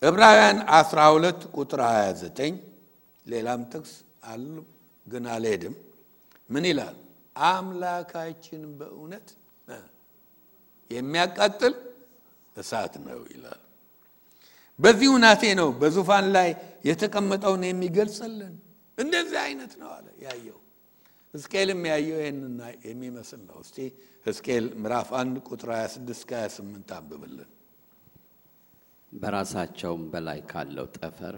ዕብራውያን 12 ቁጥር 29 ሌላም ጥቅስ አሉ ግን አልሄድም። ምን ይላል? አምላካችን በእውነት የሚያቃጥል እሳት ነው ይላል። በዚህ ሁናቴ ነው በዙፋን ላይ የተቀመጠውን የሚገልጽልን። እንደዚህ አይነት ነው አለ ያየው። ሕዝቅኤልም ያየው ይሄንና የሚመስል ነው። እስቲ ሕዝቅኤል ምዕራፍ 1 ቁጥር 26 28 አንብብልን። በራሳቸውም በላይ ካለው ጠፈር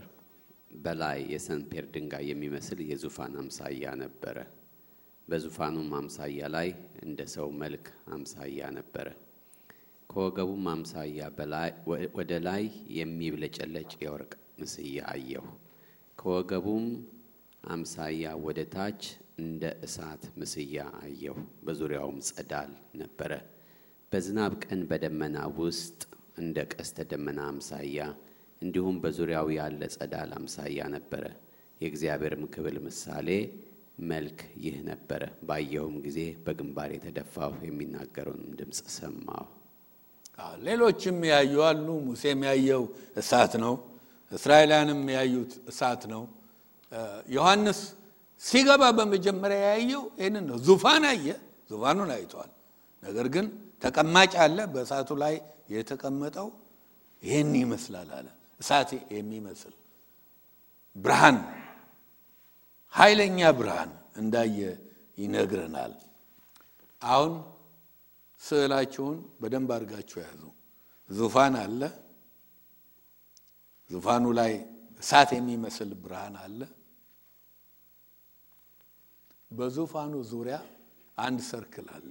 በላይ የሰንፔር ድንጋይ የሚመስል የዙፋን አምሳያ ነበረ። በዙፋኑም አምሳያ ላይ እንደ ሰው መልክ አምሳያ ነበረ። ከወገቡም አምሳያ በላይ ወደ ላይ የሚብለጨለጭ የወርቅ ምስያ አየሁ። ከወገቡም አምሳያ ወደ ታች እንደ እሳት ምስያ አየሁ። በዙሪያውም ጸዳል ነበረ። በዝናብ ቀን በደመና ውስጥ እንደ ቀስተ ደመና አምሳያ እንዲሁም በዙሪያው ያለ ጸዳል አምሳያ ነበረ። የእግዚአብሔርም ክብር ምሳሌ መልክ ይህ ነበረ። ባየሁም ጊዜ በግንባር የተደፋሁ የሚናገረውን ድምጽ ሰማሁ። ሌሎችም ያዩ አሉ። ሙሴም ያየው እሳት ነው። እስራኤላንም ያዩት እሳት ነው። ዮሐንስ ሲገባ በመጀመሪያ ያየው ይሄንን ነው። ዙፋን አየ፣ ዙፋኑን አይቷል። ነገር ግን ተቀማጭ አለ። በእሳቱ ላይ የተቀመጠው ይሄን ይመስላል አለ። እሳት የሚመስል ብርሃን፣ ኃይለኛ ብርሃን እንዳየ ይነግረናል። አሁን ስዕላችሁን በደንብ አድርጋችሁ ያዙ። ዙፋን አለ። ዙፋኑ ላይ እሳት የሚመስል ብርሃን አለ። በዙፋኑ ዙሪያ አንድ ሰርክል አለ።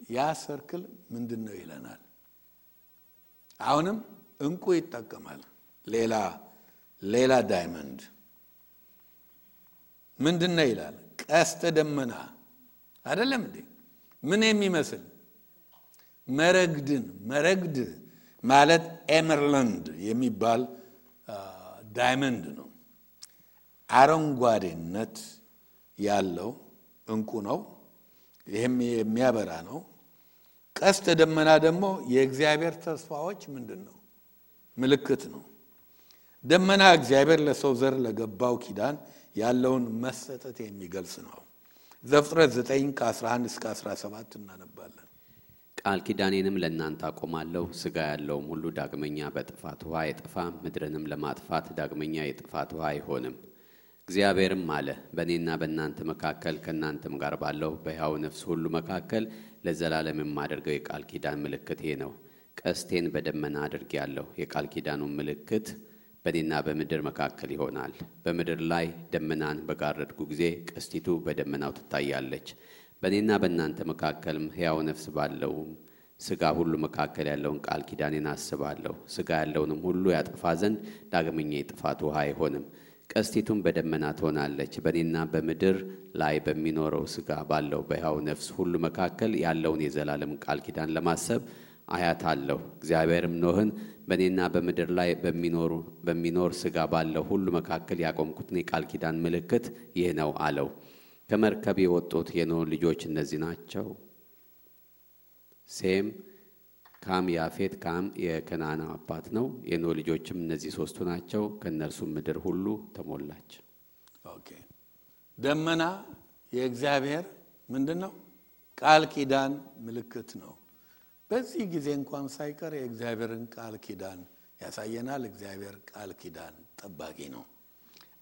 ያ ሰርክል ምንድነው ይለናል? አሁንም እንቁ ይጠቀማል። ሌላ ዳይመንድ ምንድነው ይላል? ቀስተ ደመና አይደለም እንዴ? ምን የሚመስል መረግድ ማለት ኤመርላንድ የሚባል ዳይመንድ ነው። አረንጓዴነት ያለው እንቁ ነው። ይሄም የሚያበራ ነው። ቀስተ ደመና ደግሞ የእግዚአብሔር ተስፋዎች ምንድነው? ምልክት ነው። ደመና እግዚአብሔር ለሰው ዘር ለገባው ኪዳን ያለውን መሰጠት የሚገልጽ ነው። ዘፍጥረት 9:11 እስከ 17 እናነባለን። ቃል ኪዳኔንም ለእናንተ አቆማለሁ፣ ሥጋ ያለውም ሁሉ ዳግመኛ በጥፋት ውሃ አይጠፋም፣ ምድርንም ለማጥፋት ዳግመኛ የጥፋት ውሃ አይሆንም። እግዚአብሔርም አለ፣ በእኔና በእናንተ መካከል ከእናንተም ጋር ባለው በሕያው ነፍስ ሁሉ መካከል ለዘላለም የማደርገው የቃል ኪዳን ምልክት ይሄ ነው። ቀስቴን በደመና አድርጌአለሁ። የቃል ኪዳኑን ምልክት በእኔና በምድር መካከል ይሆናል። በምድር ላይ ደመናን በጋረድኩ ጊዜ ቀስቲቱ በደመናው ትታያለች። በእኔና በእናንተ መካከልም ሕያው ነፍስ ባለው ሥጋ ሁሉ መካከል ያለውን ቃል ኪዳኔን አስባለሁ። ሥጋ ያለውንም ሁሉ ያጠፋ ዘንድ ዳግመኛ የጥፋት ውሃ አይሆንም። ቀስቲቱም በደመና ትሆናለች። በእኔና በምድር ላይ በሚኖረው ሥጋ ባለው በሕያው ነፍስ ሁሉ መካከል ያለውን የዘላለም ቃል ኪዳን ለማሰብ አያታለሁ። እግዚአብሔርም ኖህን በእኔና በምድር ላይ በሚኖር ሥጋ ባለው ሁሉ መካከል ያቆምኩትን የቃል ኪዳን ምልክት ይህ ነው አለው። ከመርከብ የወጡት የኖህ ልጆች እነዚህ ናቸው። ሴም፣ ካም፣ ያፌት። ካም የከነዓን አባት ነው። የኖህ ልጆችም እነዚህ ሶስቱ ናቸው። ከእነርሱም ምድር ሁሉ ተሞላች። ኦኬ። ደመና የእግዚአብሔር ምንድነው? ቃል ኪዳን ምልክት ነው። በዚህ ጊዜ እንኳን ሳይቀር የእግዚአብሔርን ቃል ኪዳን ያሳየናል። እግዚአብሔር ቃል ኪዳን ጠባቂ ነው።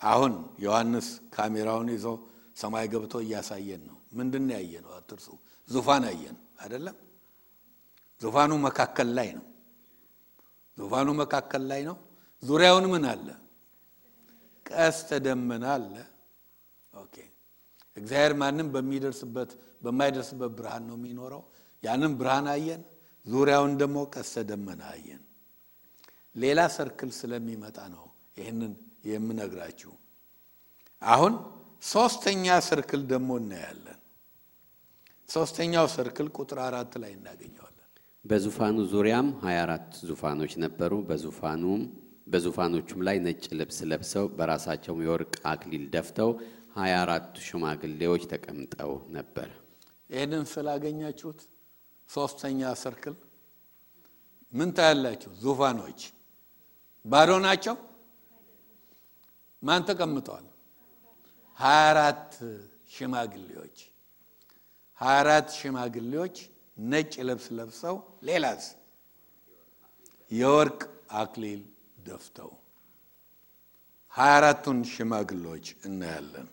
አሁን ዮሐንስ ካሜራውን ይዞ ሰማይ ገብቶ እያሳየን ነው። ምንድነው ያየነው? አትርሱ። ዙፋን አየን አይደለም? ዙፋኑ መካከል ላይ ነው። ዙፋኑ መካከል ላይ ነው። ዙሪያውን ምን አለ? ቀስተ ደመና አለ። ኦኬ። እግዚአብሔር ማንም በማይደርስበት ብርሃን ነው የሚኖረው። ያንን ብርሃን አየን። ዙሪያውን ደግሞ ቀስተ ደመና አየን። ሌላ ሰርክል ስለሚመጣ ነው ይሄንን የምነግራችሁ። አሁን ሶስተኛ ሰርክል ደግሞ እናያለን። ሶስተኛው ሰርክል ቁጥር 4 ላይ እናገኘዋለን። በዙፋኑ ዙሪያም 24 ዙፋኖች ነበሩ። በዙፋኖቹም ላይ ነጭ ልብስ ለብሰው በራሳቸው የወርቅ አክሊል ደፍተው 24 ሽማግሌዎች ተቀምጠው ነበር። ይሄንን ስላገኛችሁት ሶስተኛ ሰርክል ምን ታያላችሁ? ዙፋኖች ባዶ ናቸው። ማን ተቀምጠዋል? 24 ሽማግሌዎች። 24 ሽማግሌዎች ነጭ ልብስ ለብሰው ሌላስ የወርቅ አክሊል ደፍተው 24ቱን ሽማግሌዎች እናያለን።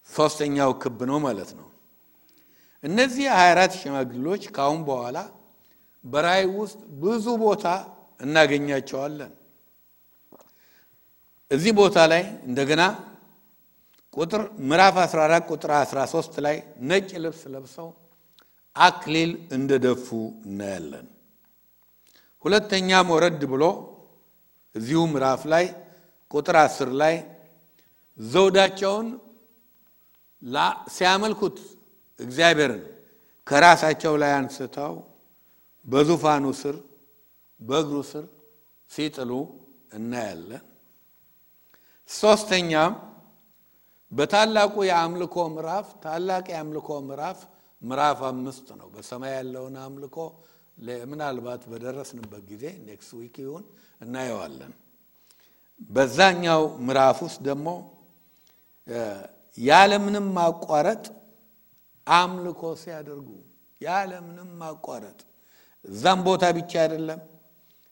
ሶስተኛው ክብ ነው ማለት ነው። እነዚህ 24 ሽማግሌዎች ካሁን በኋላ በራእይ ውስጥ ብዙ ቦታ እናገኛቸዋለን። እዚህ ቦታ ላይ እንደገና ምዕራፍ 14 ቁጥር 13 ላይ ነጭ ልብስ ለብሰው አክሊል እንደደፉ እናያለን። ሁለተኛም ወረድ ብሎ እዚሁ ምዕራፍ ላይ ቁጥር 10 ላይ ዘውዳቸውን ሲያመልኩት እግዚአብሔርን ከራሳቸው ላይ አንስተው በዙፋኑ ስር በእግሩ ስር ሲጥሉ እናያለን። ሶስተኛም በታላቁ የአምልኮ ምዕራፍ ታላቅ የአምልኮ ምዕራፍ 5 ነው። በሰማይ ያለውን አምልኮ ምናልባት በደረስንበት ጊዜ ኔክስት ዊክ ይሁን እናየዋለን። በዛኛው ምዕራፍ ውስጥ ደግሞ ያለምንም ማቋረጥ አምልኮ ሲያደርጉ ያለምንም ማቋረጥ እዛም ቦታ ብቻ አይደለም።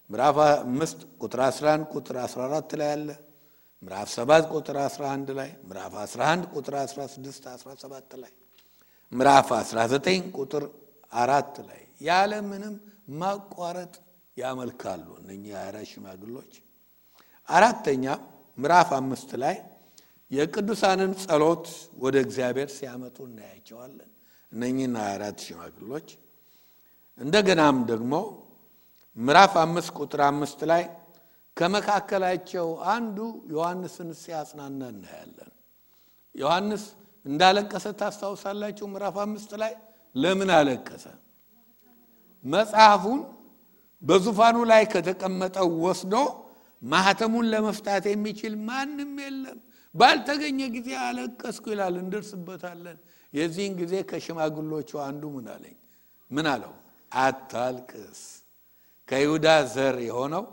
ምዕራፍ 5 ቁጥር 11 ቁጥር 14 ላይ አለ። ምዕራፍ 7 ቁጥር 11 ላይ፣ ምዕራፍ 11 ቁጥር 16 17 ላይ፣ ምዕራፍ 19 ቁጥር 4 ላይ ያለምንም ማቋረጥ ያመልካሉ እነኚህ 24 ሽማግሎች። አራተኛ ምዕራፍ 5 ላይ የቅዱሳንን ጸሎት ወደ እግዚአብሔር ሲያመጡ እናያቸዋለን እነኚህ 24 ሽማግሎች። እንደገናም ደግሞ ምዕራፍ 5 ቁጥር 5 ላይ ከመካከላቸው አንዱ ዮሐንስን ሲያጽናና እናያለን። ዮሐንስ እንዳለቀሰ ታስታውሳላችሁ። ምዕራፍ 5 ላይ ለምን አለቀሰ? መጽሐፉን በዙፋኑ ላይ ከተቀመጠው ወስዶ ማህተሙን ለመፍታት የሚችል ማንም የለም፣ ባልተገኘ ጊዜ አለቀስኩ ይላል። እንደርስበታለን። የዚህን ጊዜ ከሽማግሎቹ አንዱ ምን አለው? አታልቅስ፣ ከይሁዳ ዘር የሆነው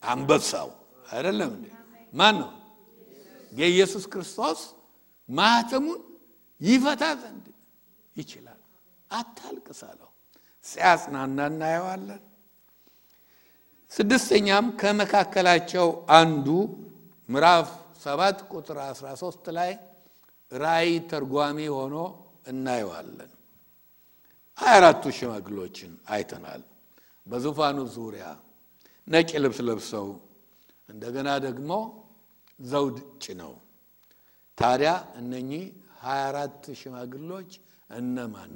አንበሳው አይደለም እንዴ? ማን ነው? የኢየሱስ ክርስቶስ ማህተሙን ይፈታ ዘንድ ይችላል። አታልቅስ አለው። ሲያጽናና እናየዋለን። ስድስተኛም ከመካከላቸው አንዱ ምዕራፍ 7 ቁጥር 13 ላይ ራእይ ተርጓሚ ሆኖ እናየዋለን። 24ቱ ሽማግሎችን አይተናል። በዙፋኑ ዙሪያ ነጭ ልብስ ለብሰው እንደገና ደግሞ ዘውድ ጭነው። ታዲያ እነኚህ 24 ሽማግሎች እነማን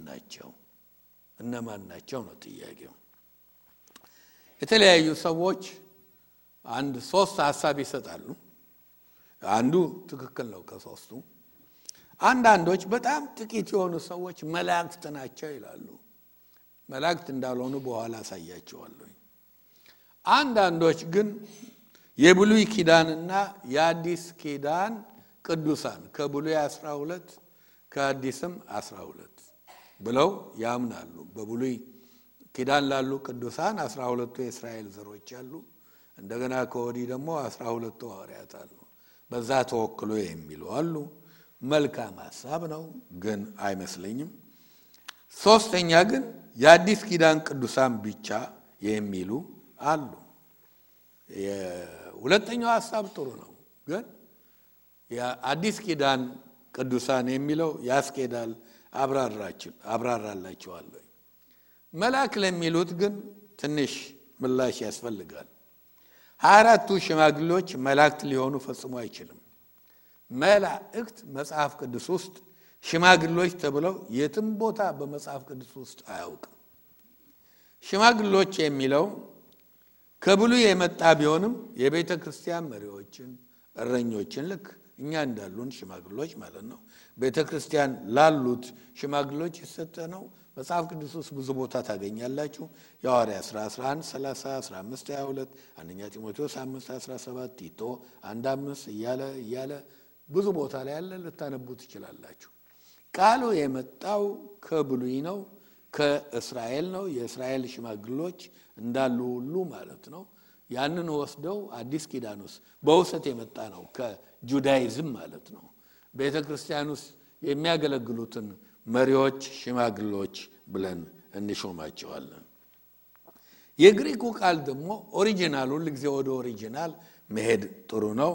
ናቸው ነው ጥያቄው። የተለያዩ ሰዎች አንድ 3 ሐሳብ ይሰጣሉ። አንዱ ትክክል ነው ከሶስቱ። አንዳንዶች በጣም ጥቂት የሆኑ ሰዎች መላእክት ናቸው ይላሉ። መላእክት እንዳልሆኑ በኋላ አሳያቸዋለሁ። አንዳንዶች ግን የብሉይ ኪዳንና የአዲስ ኪዳን ቅዱሳን ከብሉይ 12 ከአዲስም 12 ብለው ያምናሉ። በብሉይ ኪዳን ላሉ ቅዱሳን 12ቱ የእስራኤል ዘሮች አሉ። እንደገና ከወዲህ ደግሞ 12ቱ ሐዋርያት አሉ። በዛ ተወክሎ የሚሉ አሉ። መልካም ሐሳብ ነው፣ ግን አይመስለኝም። ሶስተኛ ግን የአዲስ ኪዳን ቅዱሳን ብቻ የሚሉ አሉ። የሁለተኛው ሐሳብ ጥሩ ነው፣ ግን የአዲስ ኪዳን ቅዱሳን የሚለው ያስኬዳል። አብራራላችኋለሁ። መልአክ ለሚሉት ግን ትንሽ ምላሽ ያስፈልጋል። 24ቱ ሽማግሌዎች መላእክት ሊሆኑ ፈጽሞ አይችልም። መላእክት መጽሐፍ ቅዱስ ውስጥ ሽማግሌዎች ተብለው የትም ቦታ በመጽሐፍ ቅዱስ ውስጥ አያውቅም። ሽማግሌዎች የሚለው ከብሉይ የመጣ ቢሆንም የቤተ ክርስቲያን መሪዎችን፣ እረኞችን ልክ እኛ እንዳሉን ሽማግሌዎች ማለት ነው። ቤተ ክርስቲያን ላሉት ሽማግሌዎች የሰጠ ነው። መጽሐፍ ቅዱስ ውስጥ ብዙ ቦታ ታገኛላችሁ። የሐዋርያት ሥራ 11 30 15 22 አንደኛ ጢሞቴዎስ 5 17 ቲቶ 1:5 እያለ ብዙ ቦታ ላይ ያለ ልታነቡ ትችላላችሁ። ቃሉ የመጣው ከብሉይ ነው፣ ከእስራኤል ነው። የእስራኤል ሽማግሌዎች እንዳሉ ሁሉ ማለት ነው። ያንን ወስደው አዲስ ኪዳን ውስጥ በውሰት የመጣ ነው፣ ከጁዳይዝም ማለት ነው። ቤተ ክርስቲያን ውስጥ የሚያገለግሉትን መሪዎች ሽማግሌዎች ብለን እንሾማቸዋለን። የግሪኩ ቃል ደግሞ ኦሪጂናሉ ለጊዜ ወደ ኦሪጂናል መሄድ ጥሩ ነው።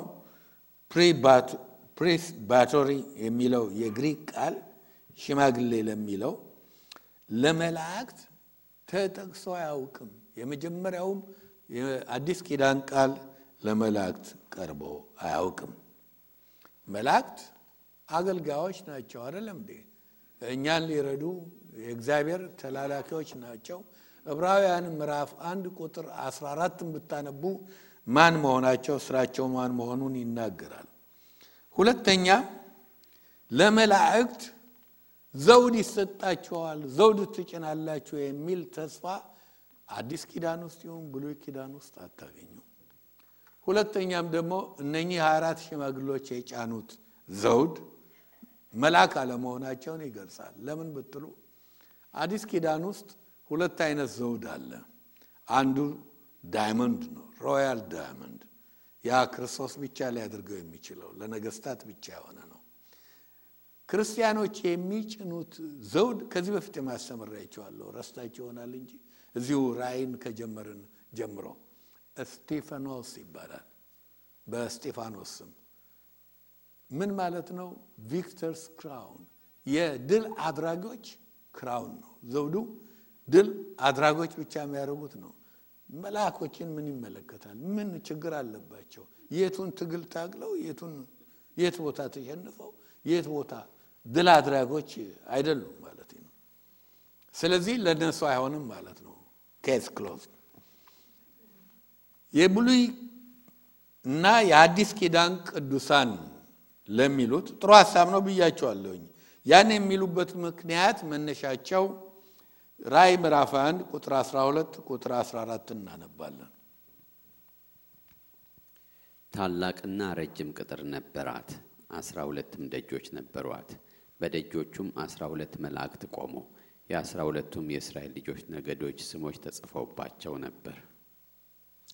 ፕሪስባቶሪ የሚለው የግሪክ ቃል ሽማግሌ ለሚለው ለመላእክት ተጠቅሶ አያውቅም። የመጀመሪያውም የአዲስ ኪዳን ቃል ለመላእክት ቀርቦ አያውቅም። መላእክት አገልጋዮች ናቸው አይደለም እንዴ? እኛን ሊረዱ የእግዚአብሔር ተላላኪዎች ናቸው። ዕብራውያን ምዕራፍ 1 ቁጥር 14ን ብታነቡ ማን መሆናቸው ስራቸው ማን መሆኑን ይናገራል። ሁለተኛ ለመላእክት ዘውድ ይሰጣችኋል፣ ዘውድ ትጭናላችሁ የሚል ተስፋ አዲስ ኪዳን ውስጥ ይሁን ብሉይ ኪዳን ውስጥ አታገኙ። ሁለተኛም ደግሞ እነኚህ 24 ሽማግሌዎች የጫኑት ዘውድ መልአክ አለመሆናቸውን ይገልጻል። ለምን ብትሉ አዲስ ኪዳን ውስጥ ሁለት አይነት ዘውድ አለ። አንዱ ዳይመንድ ነው፣ ሮያል ዳይመንድ። ያ ክርስቶስ ብቻ ሊያደርገው የሚችለው ለነገስታት ብቻ የሆነ ነው። ክርስቲያኖች የሚጭኑት ዘውድ ከዚህ በፊት ማስተምራችኋለሁ፣ ረስታችሁ ይሆናል እንጂ እዚሁ ራእይን ከጀመርን ጀምሮ ስቴፋኖስ ይባላል። በስቴፋኖስ ስም ምን ማለት ነው? ቪክተርስ ክራውን፣ የድል አድራጊዎች ክራውን ነው ዘውዱ። ድል አድራጊዎች ብቻ የሚያደርጉት ነው። መልአኮችን ምን ይመለከታል? ምን ችግር አለባቸው? የቱን ትግል ታግለው የት ቦታ ተሸንፈው የት ቦታ ድል አድራጊዎች አይደሉም ማለት ነው። ስለዚህ ለነሱ አይሆንም ማለት ነው። ኬስ ክሎዝ። የብሉይ እና የአዲስ ኪዳን ቅዱሳን ለሚሉት ጥሩ ሐሳብ ነው ብያቸዋለሁኝ። ያን የሚሉበት ምክንያት መነሻቸው ራእይ ምዕራፍ 1 ቁጥር 12 ቁጥር 14 እናነባለን። ታላቅና ረጅም ቅጥር ነበራት፣ 12ም ደጆች ነበሯት። በደጆቹም 12 መላእክት ቆሙ። የ12ቱም የእስራኤል ልጆች ነገዶች ስሞች ተጽፈውባቸው ነበር።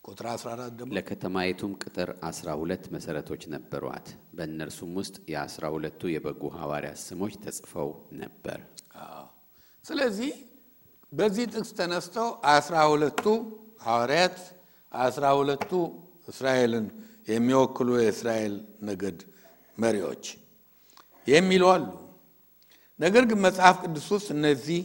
ቁጥር 14 ደግሞ ለከተማይቱም ቅጥር 12 መሰረቶች ነበሯት። በእነርሱም ውስጥ የ12ቱ የበጉ ሐዋርያት ስሞች ተጽፈው ነበር። ስለዚህ በዚህ ጥቅስ ተነስተው 12ቱ ሐዋርያት 12ቱ እስራኤልን የሚወክሉ የእስራኤል ነገድ መሪዎች የሚሉ አሉ። ነገር ግን መጽሐፍ ቅዱስ ውስጥ እነዚህ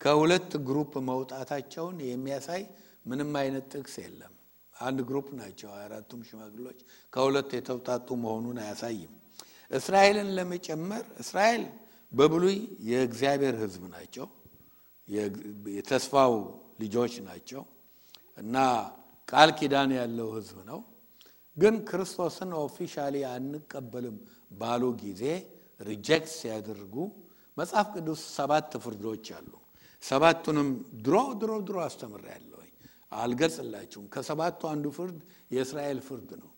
ከሁለት ግሩፕ መውጣታቸውን የሚያሳይ ምንም አይነት ጥቅስ የለም። አንድ ግሩፕ ናቸው 24ቱም ሽማግሌዎች፣ ከሁለት የተውጣጡ መሆኑን አያሳይም። እስራኤልን ለመጨመር እስራኤል በብሉይ የእግዚአብሔር ሕዝብ ናቸው፣ የተስፋው ልጆች ናቸው እና ቃል ኪዳን ያለው ሕዝብ ነው። ግን ክርስቶስን ኦፊሻሊ አንቀበልም ባሉ ጊዜ ሪጀክት ሲያደርጉ መጽሐፍ ቅዱስ 7 ፍርዶች አሉ። 7ቱንም ድሮ አስተምራለሁ፣ አልገልጽላችሁም። ከ7ቱ አንዱ ፍርድ የእስራኤል ፍርድ ነው።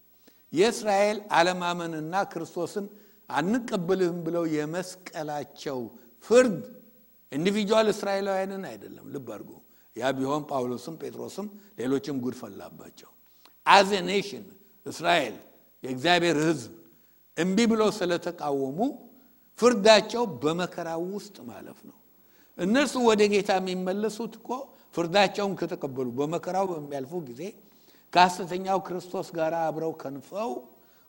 የእስራኤል አለማመንና ክርስቶስን አንቀበልም ብለው የመስቀላቸው ፍርድ ኢንዲቪጁዋል እስራኤላውያንን አይደለም። ልብ አድርጉ። ያ ቢሆን ጳውሎስም ጴጥሮስም ሌሎችም ጉድ ፈላባቸው። አዝ ኤ ኔሽን እስራኤል የእግዚአብሔር ሕዝብ እምቢ ብለው ስለተቃወሙ ፍርዳቸው በመከራው ውስጥ ማለፍ ነው። እነርሱ ወደ ጌታ የሚመለሱት እኮ ፍርዳቸውን ከተቀበሉ በመከራው በሚያልፉ ጊዜ ከሐሰተኛው ክርስቶስ ጋር አብረው ከንፈው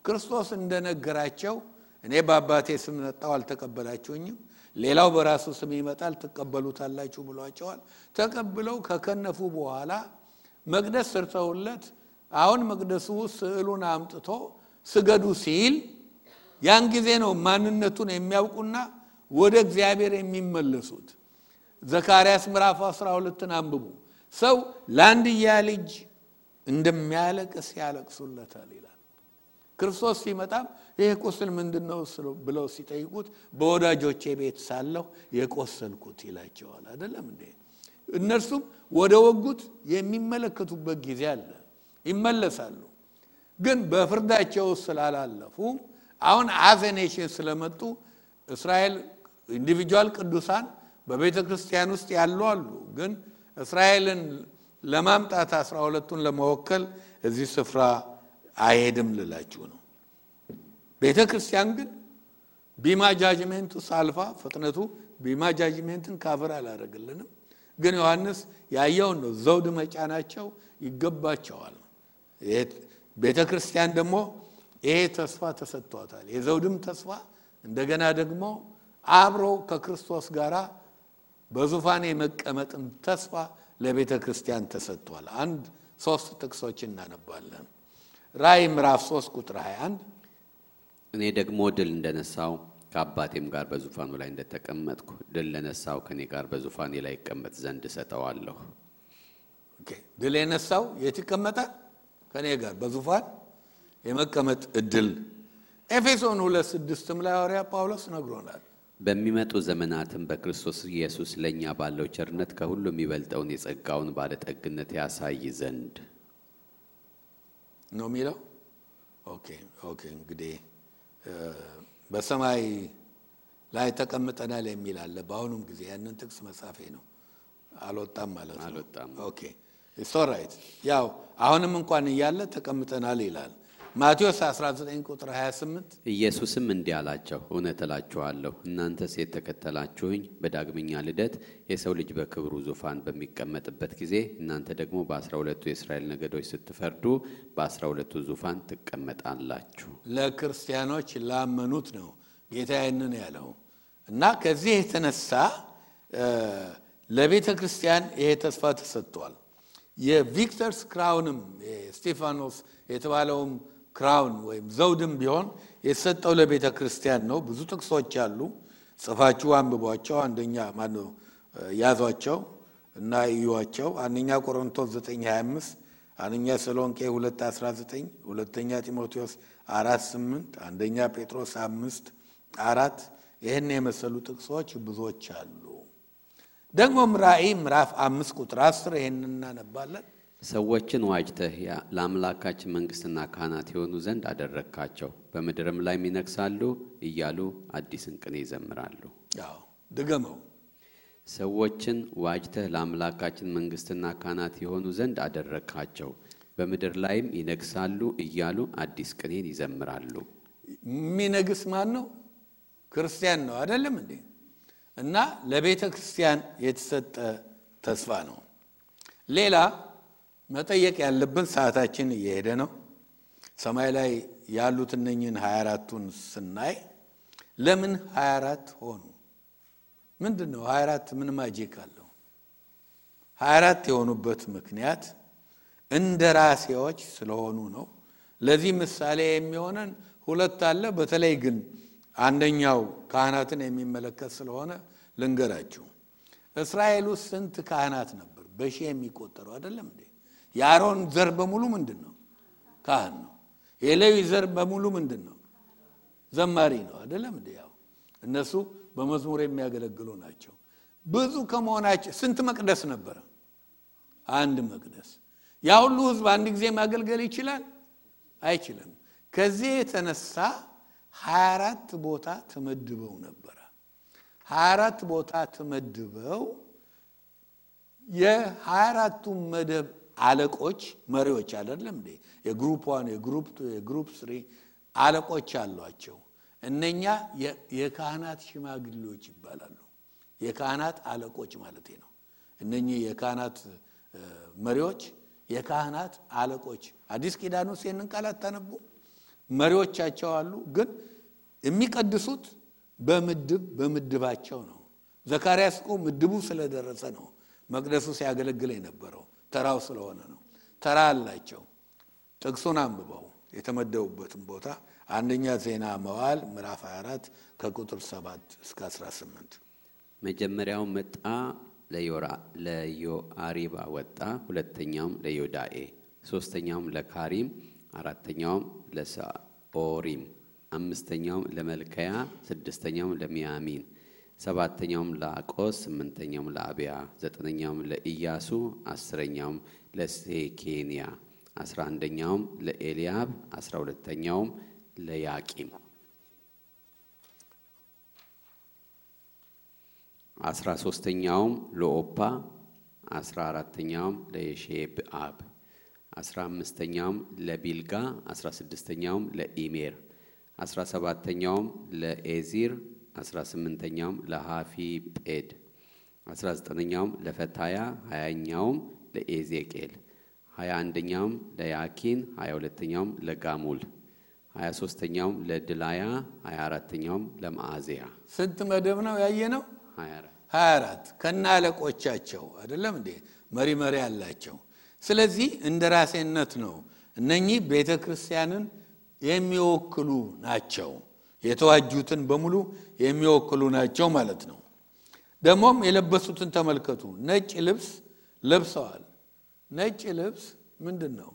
ክርስቶስ እንደነገራቸው እኔ በአባቴ ስም መጣሁ አልተቀበላችሁኝም፣ ሌላው በራሱ ስም ይመጣል ትቀበሉታላችሁ ብሏቸዋል። ተቀብለው ከከነፉ በኋላ መቅደስ ሰርተውለት አሁን መቅደሱ ስዕሉን አምጥቶ ስገዱ ሲል ያን ጊዜ ነው ማንነቱን የሚያውቁና ወደ እግዚአብሔር የሚመለሱት። ዘካርያስ ምዕራፍ 12ን አንብቡ። ሰው ለአንድያ ልጅ እንደሚያለቅስ ያለቅሱለታል ይላል። ክርስቶስ ሲመጣም ይሄ ቁስል ምንድነው ብለው ሲጠይቁት በወዳጆቼ ቤት ሳለሁ የቆሰልኩት ይላቸዋል። አይደለም እንዴ? እነርሱም ወደ ወጉት የሚመለከቱበት ጊዜ አለ፣ ይመለሳሉ። ግን በፍርዳቸው ስላላለፉ አሁን አዘኔሽን ስለመጡ እስራኤል ኢንዲቪጁዋል ቅዱሳን በቤተ ክርስቲያን ውስጥ ያሉ አሉ። ግን እስራኤልን ለማምጣት 12ቱን ለመወከል እዚህ ስፍራ አይሄድም ልላችሁ ነው። ቤተ ክርስቲያን ግን ቢማ ጃጅመንቱ ሳልፋ ፍጥነቱ ቢማ ጃጅመንትን ካቨር አላደረገልንም። ግን ዮሐንስ ያየውን ነው። ዘውድ መጫናቸው ይገባቸዋል። ቤተ ክርስቲያን ደግሞ ይሄ ተስፋ ተሰጥቷታል። የዘውድም ተስፋ እንደገና ደግሞ አብሮ ከክርስቶስ ጋር በዙፋን የመቀመጥም ተስፋ ለቤተ ክርስቲያን ተሰጥቷል። 3 ጥቅሶች እናነባለን። ራእይ ምዕራፍ 3 ቁጥር 21 እኔ ደግሞ ድል እንደነሳው ከአባቴም ጋር በዙፋኑ ላይ እንደተቀመጥኩ ድል ለነሳው ከኔ ጋር በዙፋኔ ላይ ይቀመጥ ዘንድ እሰጠዋለሁ። ኦኬ፣ ድል የነሳው የት ይቀመጣል? ከኔ ጋር በዙፋን የመቀመጥ እድል። ኤፌሶን 2:6 ላይ ሐዋርያ ጳውሎስ ነግሮናል። በሚመጡ ዘመናትም በክርስቶስ ኢየሱስ ለኛ ባለው ቸርነት ከሁሉ የሚበልጠውን የጸጋውን ባለጠግነት ያሳይ ዘንድ ነው የሚለው። ኦኬ እንግዲህ በሰማይ ላይ ተቀምጠናል የሚል አለ። በአሁኑም ጊዜ ያንን ጥቅስ መጻፌ ነው አልወጣም ማለት ነው። አልወጣም። ኦኬ ኢትስ ኦልራይት። ያው አሁንም እንኳን እያለ ተቀምጠናል ይላል። ማቴዎስ 19 ቁጥር 28 ኢየሱስም እንዲህ አላቸው፣ እውነት እላችኋለሁ እናንተስ የተከተላችሁኝ በዳግመኛ ልደት የሰው ልጅ በክብሩ ዙፋን በሚቀመጥበት ጊዜ እናንተ ደግሞ በ12ቱ የእስራኤል ነገዶች ስትፈርዱ በ12ቱ ዙፋን ትቀመጣላችሁ። ለክርስቲያኖች ላመኑት ነው ጌታ ይህንን ያለው እና ከዚህ የተነሳ ለቤተ ክርስቲያን ይሄ ተስፋ ተሰጥቷል። የቪክተርስ ክራውንም ስቴፋኖስ የተባለውም ክራውን ወይም ዘውድም ቢሆን የተሰጠው ለቤተ ክርስቲያን ነው። ብዙ ጥቅሶች አሉ፣ ጽፋችሁ አንብቧቸው። አንደኛ ማነው ያዟቸው እና እዩዋቸው። አንደኛ ቆሮንቶስ 9:25፣ አንደኛ ተሰሎንቄ 2:19፣ ሁለተኛ ጢሞቴዎስ 4:8፣ አንደኛ ጴጥሮስ 5:4 ይህን የመሰሉ ጥቅሶች ብዙዎች አሉ። ደግሞ ራእይ ምዕራፍ 5 ቁጥር 10 ይሄንን እናነባለን። ሰዎችን ዋጅተህ ለአምላካችን መንግስትና ካህናት የሆኑ ዘንድ አደረግካቸው፣ በምድርም ላይ ይነግሣሉ እያሉ አዲስን ቅኔ ይዘምራሉ። ያው ድገመው። ሰዎችን ዋጅተህ ለአምላካችን መንግስትና ካህናት የሆኑ ዘንድ አደረግካቸው፣ በምድር ላይም ይነግሣሉ እያሉ አዲስ ቅኔን ይዘምራሉ። የሚነግስ ማን ነው? ክርስቲያን ነው አይደለም እንዴ? እና ለቤተ ክርስቲያን የተሰጠ ተስፋ ነው። ሌላ መጠየቅ ያለብን ሰዓታችን እየሄደ ነው። ሰማይ ላይ ያሉት እነኝን 24ቱን ስናይ ለምን 24 ሆኑ? ምንድነው 24? ምን ማጂክ አለው? 24 የሆኑበት ምክንያት እንደራሴዎች ስለሆኑ ነው። ለዚህ ምሳሌ የሚሆነን ሁለት አለ። በተለይ ግን አንደኛው ካህናትን የሚመለከት ስለሆነ ልንገራችሁ። እስራኤል ውስጥ ስንት ካህናት ነበር? በሺህ የሚቆጠሩ አይደለም እንዴ? የአሮን ዘር በሙሉ ምንድነው? ካህን ነው። የሌዊ ዘር በሙሉ ምንድነው? ዘማሪ ነው አይደለም እንዴ? ያው እነሱ በመዝሙር የሚያገለግሉ ናቸው። ብዙ ከመሆናቸው ስንት መቅደስ ነበር? አንድ መቅደስ። ያ ሁሉ ህዝብ አንድ ጊዜ ማገልገል ይችላል? አይችልም። ከዚህ የተነሳ 24 ቦታ ተመድበው ነበር። 24 ቦታ ተመድበው የ24ቱ መደብ አለቆች መሪዎች አይደለም እንዴ? የግሩፕ 1 የግሩፕ 2 የግሩፕ 3 አለቆች አሏቸው። እነኛ የካህናት ሽማግሌዎች ይባላሉ። የካህናት አለቆች ማለት ነው። እነኚህ የካህናት መሪዎች የካህናት አለቆች። አዲስ ኪዳን ውስጥ ይህንን ቃል አታነቡ? መሪዎቻቸው አሉ። ግን የሚቀድሱት በምድባቸው ነው። ዘካርያስ እኮ ምድቡ ስለደረሰ ነው መቅደሱ ሲያገለግል የነበረው፣ ተራው ስለሆነ ነው። ተራ አላቸው። ጥቅሱን አንብበው የተመደቡበትን ቦታ። አንደኛ ዜና መዋዕል ምዕራፍ 24 ከቁጥር 7 እስከ 18። መጀመሪያው መጣ ለዮአሪባ ወጣ፣ ሁለተኛውም ለዮዳኤ፣ ሶስተኛውም ለካሪም፣ አራተኛውም ለሳኦሪም፣ አምስተኛውም ለመልከያ፣ ስድስተኛውም ለሚያሚን፣ ሰባተኛውም ለአቆስ፣ ስምንተኛውም ለአብያ፣ ዘጠነኛውም ለኢያሱ፣ አስረኛውም ለሴኬንያ፣ 11ኛውም ለኤልያብ፣ 12ኛውም ለያቂም፣ 13ኛውም ለኦፓ፣ 14ኛውም ለየሼብአብ፣ 15ኛውም ለቢልጋ፣ 16ኛውም ለኢሜር፣ 17ኛውም ለኤዚር፣ 18ኛውም ለሃፊጴድ፣ 19ኛውም ለፈታያ፣ 20ኛውም ለኤዜቄል፣ 21ኛውም ለያኪን፣ 22ኛውም ለጋሙል፣ 23ኛውም ለድላያ፣ 24ኛውም ለማዓዚያ። ስንት መደብ ነው ያየነው? 24 ከናለቆቻቸው አይደለም እንዴ? መሪ ያላቸው። ስለዚህ እንደራሴነት ነው። እነኚህ ቤተክርስቲያንን የሚወክሉ ናቸው። የተዋጁትን በሙሉ የሚወክሉ ናቸው ማለት ነው። ደግሞም የለበሱትን ተመልከቱ። ነጭ ልብስ ለብሰዋል። ነጭ ልብስ ምንድነው?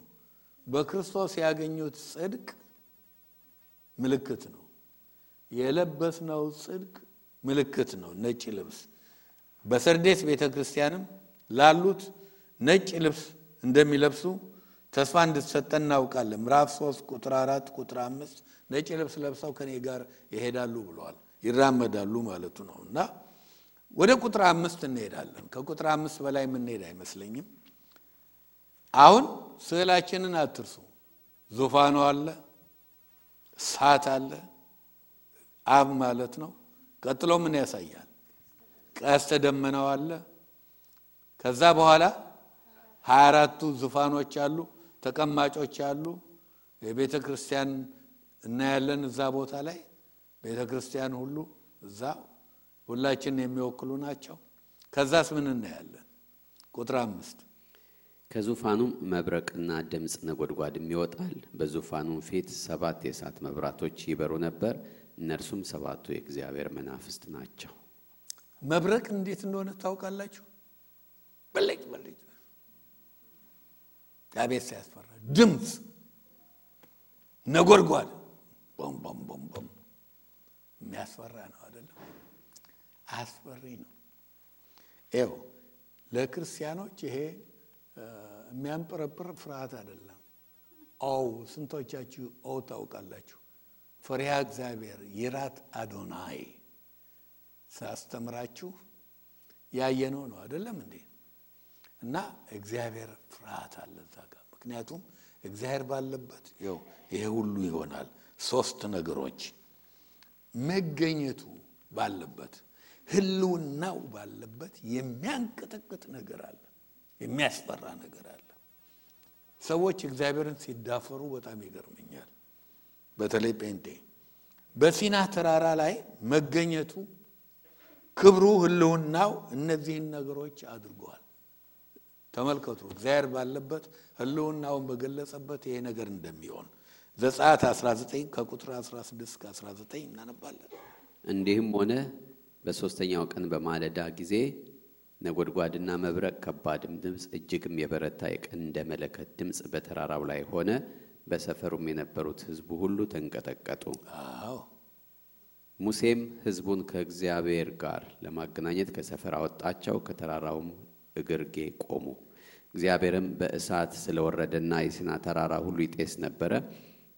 በክርስቶስ ያገኙት ጽድቅ ምልክት ነው። የለበስነው ጽድቅ ምልክት ነው ነጭ ልብስ። በሰርዴስ ቤተክርስቲያንም ላሉት ነጭ ልብስ እንደሚለብሱ ተስፋ እንድትሰጠን እናውቃለን። ምዕራፍ 3 ቁጥር 4 ቁጥር 5 ነጭ ልብስ ለብሰው ከኔ ጋር ይሄዳሉ ብለዋል። ይራመዳሉ ማለቱ ነውና ወደ ቁጥር 5 እንሄዳለን። ከቁጥር 5 በላይ የምንሄድ አይመስለኝም። አሁን ስዕላችንን አትርሱ። ዙፋኑ አለ፣ እሳት አለ፣ አብ ማለት ነው። ቀጥሎ ምን ያሳያል? ቀስተ ደመናው አለ። ከዛ በኋላ 24ቱ ዙፋኖች አሉ፣ ተቀማጮች አሉ። የቤተ ክርስቲያን እናያለን እዛ ቦታ ላይ ቤተ ክርስቲያን ሁሉ እዛ ሁላችንን የሚወክሉ ናቸው። ከዛስ ምን እናያለን? ቁጥር 5 ከዙፋኑም መብረቅና ድምጽ ነጎድጓድም ይወጣል። በዙፋኑም ፊት 7 የእሳት መብራቶች ይበሩ ነበር። እነርሱም 7ቱ የእግዚአብሔር መናፍስት ናቸው። መብረቅ እንዴት እንደሆነ ታውቃላችሁ? በለጭ አቤት ሲያስፈራ! ድምጽ ነጎድጓድ ቦም ቦም ቦም ቦም የሚያስፈራ ነው አይደለም? አስፈሪ ነው። ይኸው ለክርስቲያኖች ይሄ የሚያንጠረጥር ፍርሃት አይደለም። ስንቶቻችሁ ታውቃላችሁ? ፈሪሃ እግዚአብሔር ይራት አዶናይ ሳስተምራችሁ ያየነው ነው አይደለም እንዴ? እና እግዚአብሔር ፍርሃት አለ እዛ ጋር። ምክንያቱም እግዚአብሔር ባለበት ይሄ ሁሉ ይሆናል። 3 ነገሮች መገኘቱ ባለበት፣ ህልውናው ባለበት የሚያንቀጠቅጥ ነገር አለ፣ የሚያስፈራ ነገር አለ። ሰዎች እግዚአብሔርን ሲዳፈሩ በጣም ይገርመኛል። በተለይ ጴንጤ በሲና ተራራ ላይ መገኘቱ፣ ክብሩ፣ ህልውናው እነዚህን ነገሮች አድርጓል። ተመልከቱ፣ እግዚአብሔር ባለበት ህልውናውን በገለጸበት ይሄ ነገር እንደሚሆን ዘጸአት 19 ከቁጥር 16 እስከ 19 እናነባለን። እንዲህም ሆነ በሶስተኛው ቀን በማለዳ ጊዜ ነጎድጓድና መብረቅ፣ ከባድም ድምጽ፣ እጅግም የበረታ የቀንደ መለከት ድምጽ በተራራው ላይ ሆነ። በሰፈሩም የነበሩት ሕዝቡ ሁሉ ተንቀጠቀጡ። ሙሴም ሕዝቡን ከእግዚአብሔር ጋር ለማገናኘት ከሰፈር አወጣቸው። ከተራራውም እግርጌ ቆሙ። እግዚአብሔርም በእሳት ስለወረደና የሲና ተራራ ሁሉ ይጤስ ነበረ።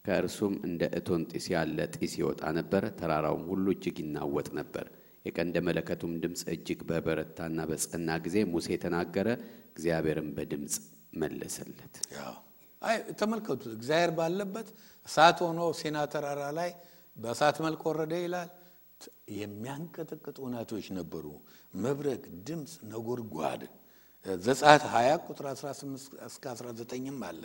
ከእርሱም እንደ እቶን ጢስ ያለ ጢስ ይወጣ ነበር። ተራራውም ሁሉ እጅግ ይናወጥ ነበር። የቀንደ መለከቱም ድምጽ እጅግ በበረታና በጸና ጊዜ ሙሴ ተናገረ፣ እግዚአብሔርም በድምጽ መለሰለት። ተመልከቱ፣ እግዚአብሔር ባለበት እሳት ሆኖ ሲና ተራራ ላይ በእሳት መልክ ወረደ ይላል። የሚያንቀጠቅጡ ናቶች ነበሩ። መብረቅ፣ ድምጽ፣ ነጎድጓድ ዘጸአት 20 ቁጥር 18 እስከ 19ም አለ።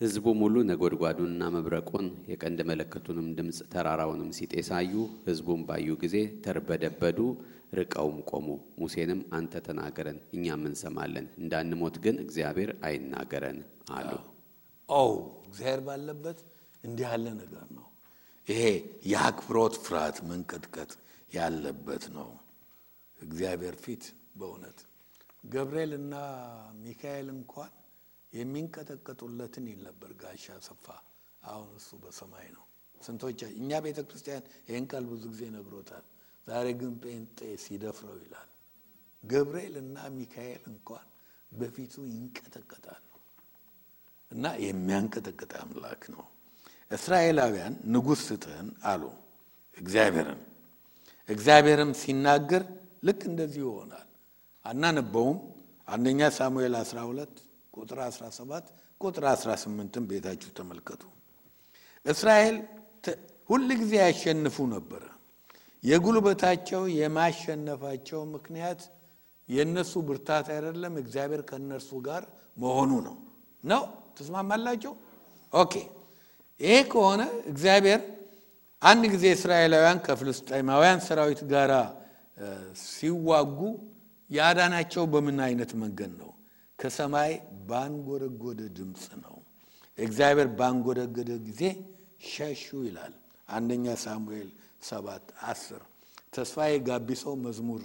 ሕዝቡም ሁሉ ነጎድጓዱንና መብረቁን የቀንደ መለከቱንም ድምጽ ተራራውንም ሲጤሳዩ፣ ሕዝቡም ባዩ ጊዜ ተርበደበዱ፣ ርቀውም ቆሙ። ሙሴንም አንተ ተናገረን እኛም እንሰማለን፣ እንዳንሞት ግን እግዚአብሔር አይናገረን አሉ። እግዚአብሔር ባለበት እንዲህ ያለ ነገር ነው። ይሄ የአክብሮት ፍርሃት መንቀጥቀጥ ያለበት ነው። እግዚአብሔር ፊት በእውነት ገብርኤልና ሚካኤል እንኳን የሚንቀጠቀጡለትን ይል ነበር ጋሻ ሰፋ። አሁን እሱ በሰማይ ነው። ስንቶች እኛ ቤተክርስቲያን ይሄን ቃል ብዙ ጊዜ ነግሮታል። ዛሬ ግን ጴንጤ ሲደፍረው ይላል። ገብርኤልና ሚካኤል እንኳን በፊቱ ይንቀጠቀጣሉ። እና የሚያንቀጠቅጥ አምላክ ነው። እስራኤላውያን ንጉሥ ስጠን አሉ እግዚአብሔርን። እግዚአብሔርም ሲናገር ልክ እንደዚህ ይሆናል። አናነበውም። አንደኛ ሳሙኤል 12 ቁጥር 17 ቁጥር 18ን ቤታችሁ ተመልከቱ። እስራኤል ሁሉ ጊዜ ያሸንፉ ነበር። የጉልበታቸው የማሸነፋቸው ምክንያት የነሱ ብርታት አይደለም፣ እግዚአብሔር ከነርሱ ጋር መሆኑ ነው። ተስማማላችሁ? ኦኬ። ይሄ ከሆነ እግዚአብሔር አንድ ጊዜ እስራኤላውያን ከፍልስጤማውያን ሰራዊት ጋር ሲዋጉ ያዳናቸው በምን አይነት መንገድ ነው? ከሰማይ ባንጎረጎደ ድምጽ ነው። እግዚአብሔር ባንጎረጎደ ጊዜ ሸሹ ይላል። አንደኛ ሳሙኤል 7:10 ተስፋዬ ጋቢሶ መዝሙር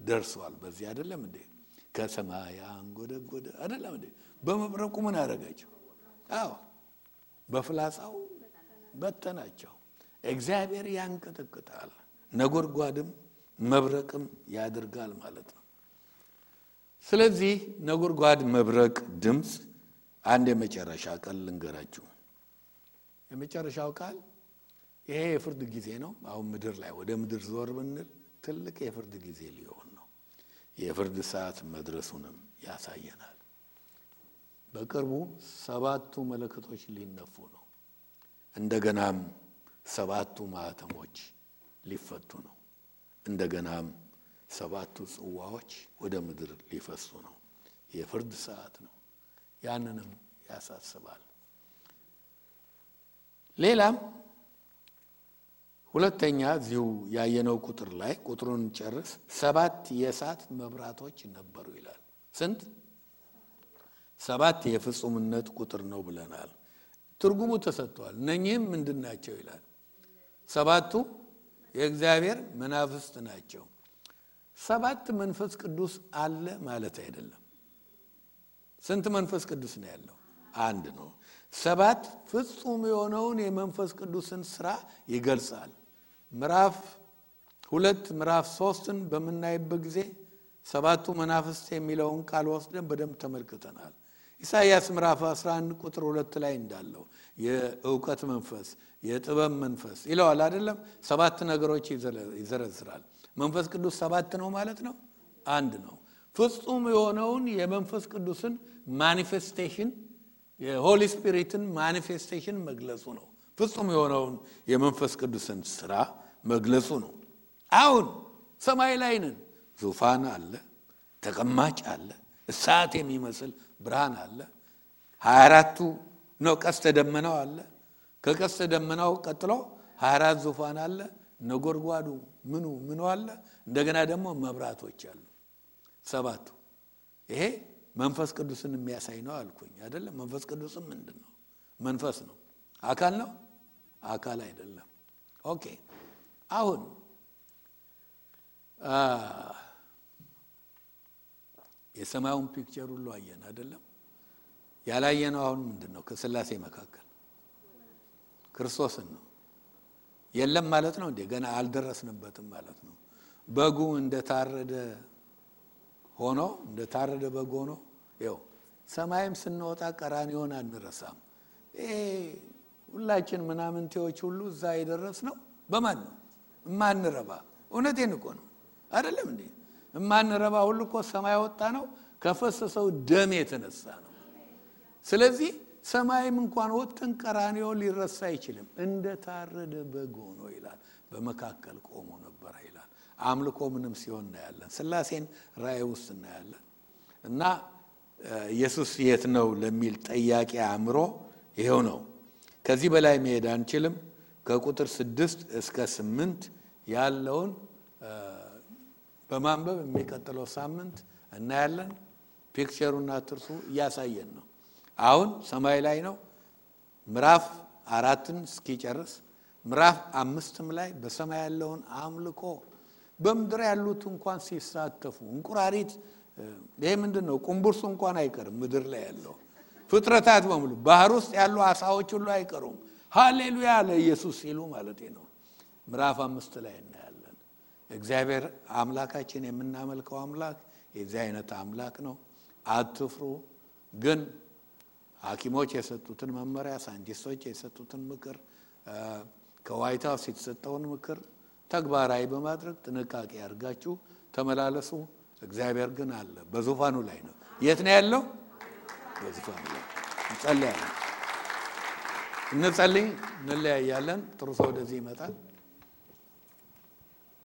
ደርሷል። በዚህ አይደለም እንዴ? ከሰማይ አንጎደጎደ አይደለም እንዴ? በመብረቁ ምን አደረጋቸው? በፍላጻው በተናቸው። እግዚአብሔር ያንቀጠቅጣል። ነጎድጓድም መብረቅም ያደርጋል ማለት ነው። ስለዚህ ነጎድጓድ መብረቅ ድምጽ አንድ የመጨረሻ ቃል ልንገራችሁ። የመጨረሻው ቃል ይሄ የፍርድ ጊዜ ነው። አሁን ምድር ላይ ወደ ምድር ዞር ብንል ትልቅ የፍርድ ጊዜ ሊሆን ነው። የፍርድ ሰዓት መድረሱንም ያሳየናል። በቅርቡ 7ቱ መለከቶች ሊነፉ ነው። እንደገናም 7ቱ ማህተሞች ሊፈቱ ነው። እንደገናም 7ቱ ጽዋዎች ወደ ምድር ሊፈሱ ነው። የፍርድ ሰዓት ነው። ያንንም ያሳስባል። ሌላም ሁለተኛ እዚሁ ያየነው ቁጥር ላይ ቁጥሩን ጨርስ 7 የእሳት መብራቶች ነበሩ ይላል። ስንት? 7 የፍጹምነት ቁጥር ነው ብለናል። ትርጉሙ ተሰጥቷል። እነኚህም ምንድናቸው ይላል? 7ቱ የእግዚአብሔር መናፍስት ናቸው። 7 መንፈስ ቅዱስ አለ ማለት አይደለም። ስንት መንፈስ ቅዱስ ነው ያለው? አንድ ነው። 7 ፍጹም የሆነውን የመንፈስ ቅዱስን ሥራ ይገልጻል። ምዕራፍ 2 ምዕራፍ 3ን በመናይበት ጊዜ 7ቱ መናፍስት የሚለውን ቃል ወስደን በደንብ ተመልክተናል። ኢሳይያስ ምዕራፍ 11 ቁጥር 2 ላይ እንዳለው የእውቀት መንፈስ፣ የጥበብ መንፈስ ይለዋል አይደለም? 7 ነገሮች ይዘረዝራል። መንፈስ ቅዱስ 7 ነው ማለት ነው? አንድ ነው። ፍጹም የሆነውን የመንፈስ ቅዱስን ማኒፌስቴሽን የሆሊ ስፒሪትን ማኒፌስቴሽን መግለጹ ነው። ፍጹም የሆነውን የመንፈስ ቅዱስን ሥራ መግለጹ ነው። አሁን ሰማይ ላይ ነን። ዙፋን አለ፣ ተቀማጭ አለ፣ እሳት የሚመስል ብርሃን አለ። 24ቱ ነው ቀስተ ደመናው አለ። ከቀስተ ደመናው ቀጥሎ 24 ዙፋን አለ። ነጎድጓዱ ምኑ አለ። እንደገና ደግሞ መብራቶች አሉ። 7ቱ ይሄ መንፈስ ቅዱስን የሚያሳይ ነው አልኩኝ አይደለም? መንፈስ ቅዱስም ምንድነው? መንፈስ ነው። አካል ነው? አካል አይደለም። ኦኬ አሁን የሰማዩን ፒክቸር ሁሉ አየን አይደለም? ያላየነው አሁን ምንድነው? ከሥላሴ መካከል ክርስቶስን ነው። የለም ማለት ነው እንዴ? ገና አልደረስንበትም ማለት ነው። በጉ እንደታረደ በግ ሆኖ ይኸው ሰማይም ስንወጣ ቀራንዮን አንረሳም። ሁላችን ምናምንቴዎች ሁሉ እዛ የደረስነው በማን ነው? እማንረባ። እውነቴን እኮ ነው አይደለም እንዴ? እማንረባ ሁሉ እኮ ሰማይ ወጣ ነው ከፈሰሰው ደም የተነሳ ነው። ስለዚህ ሰማይም እንኳን ወጥተን ቀራንዮ ሊረሳ አይችልም። እንደታረደ በግ ሆኖ ይላል በመካከል ቆሞ ነበር ይላል። አምልኮ ምንም ሲሆን እናያለን። ሥላሴን ራእይ ውስጥ እናያለን። እና ኢየሱስ የት ነው ለሚል ጥያቄ አእምሮ ይሄው ነው። ከዚህ በላይ መሄድ አንችልም። ከቁጥር 6 እስከ 8 ያለውን በማንበብ የሚቀጥለው ሳምንት እናያለን። ፒክቸሩና ትርሱ እያሳየን ነው። አሁን ሰማይ ላይ ነው። ምዕራፍ 4ን እስኪጨርስ ምዕራፍ 5ም ላይ በሰማይ ያለውን አምልኮ በምድር ያሉት እንኳን ሲሳተፉ እንቁራሪት ይሄ ምንድነው? ቁምቡርሱ እንኳን አይቀርም። ምድር ላይ ያለው ፍጥረታት በሙሉ ባህር ውስጥ ያሉ አሳዎች ሁሉ አይቀሩም። ሃሌሉያ ለኢየሱስ ሲሉ ማለት ነው። ምዕራፍ 5 ላይ እናያለን። እግዚአብሔር አምላካችን የምናመልከው አምላክ የዚህ አይነት አምላክ ነው። አትፍሩ። ግን ሐኪሞች የሰጡትን መመሪያ፣ ሳይንቲስቶች የሰጡትን ምክር፣ ከዋይት ሃውስ የተሰጠውን ምክር ተግባራዊ በማድረግ ጥንቃቄ አድርጋችሁ ተመላለሱ። እግዚአብሔር ግን አለ፣ በዙፋኑ ላይ ነው። የት ነው ያለው? በዙፋኑ ላይ። እንጸልያለን። እንለያያለን። ጥሩ ሰው ወደዚህ ይመጣል።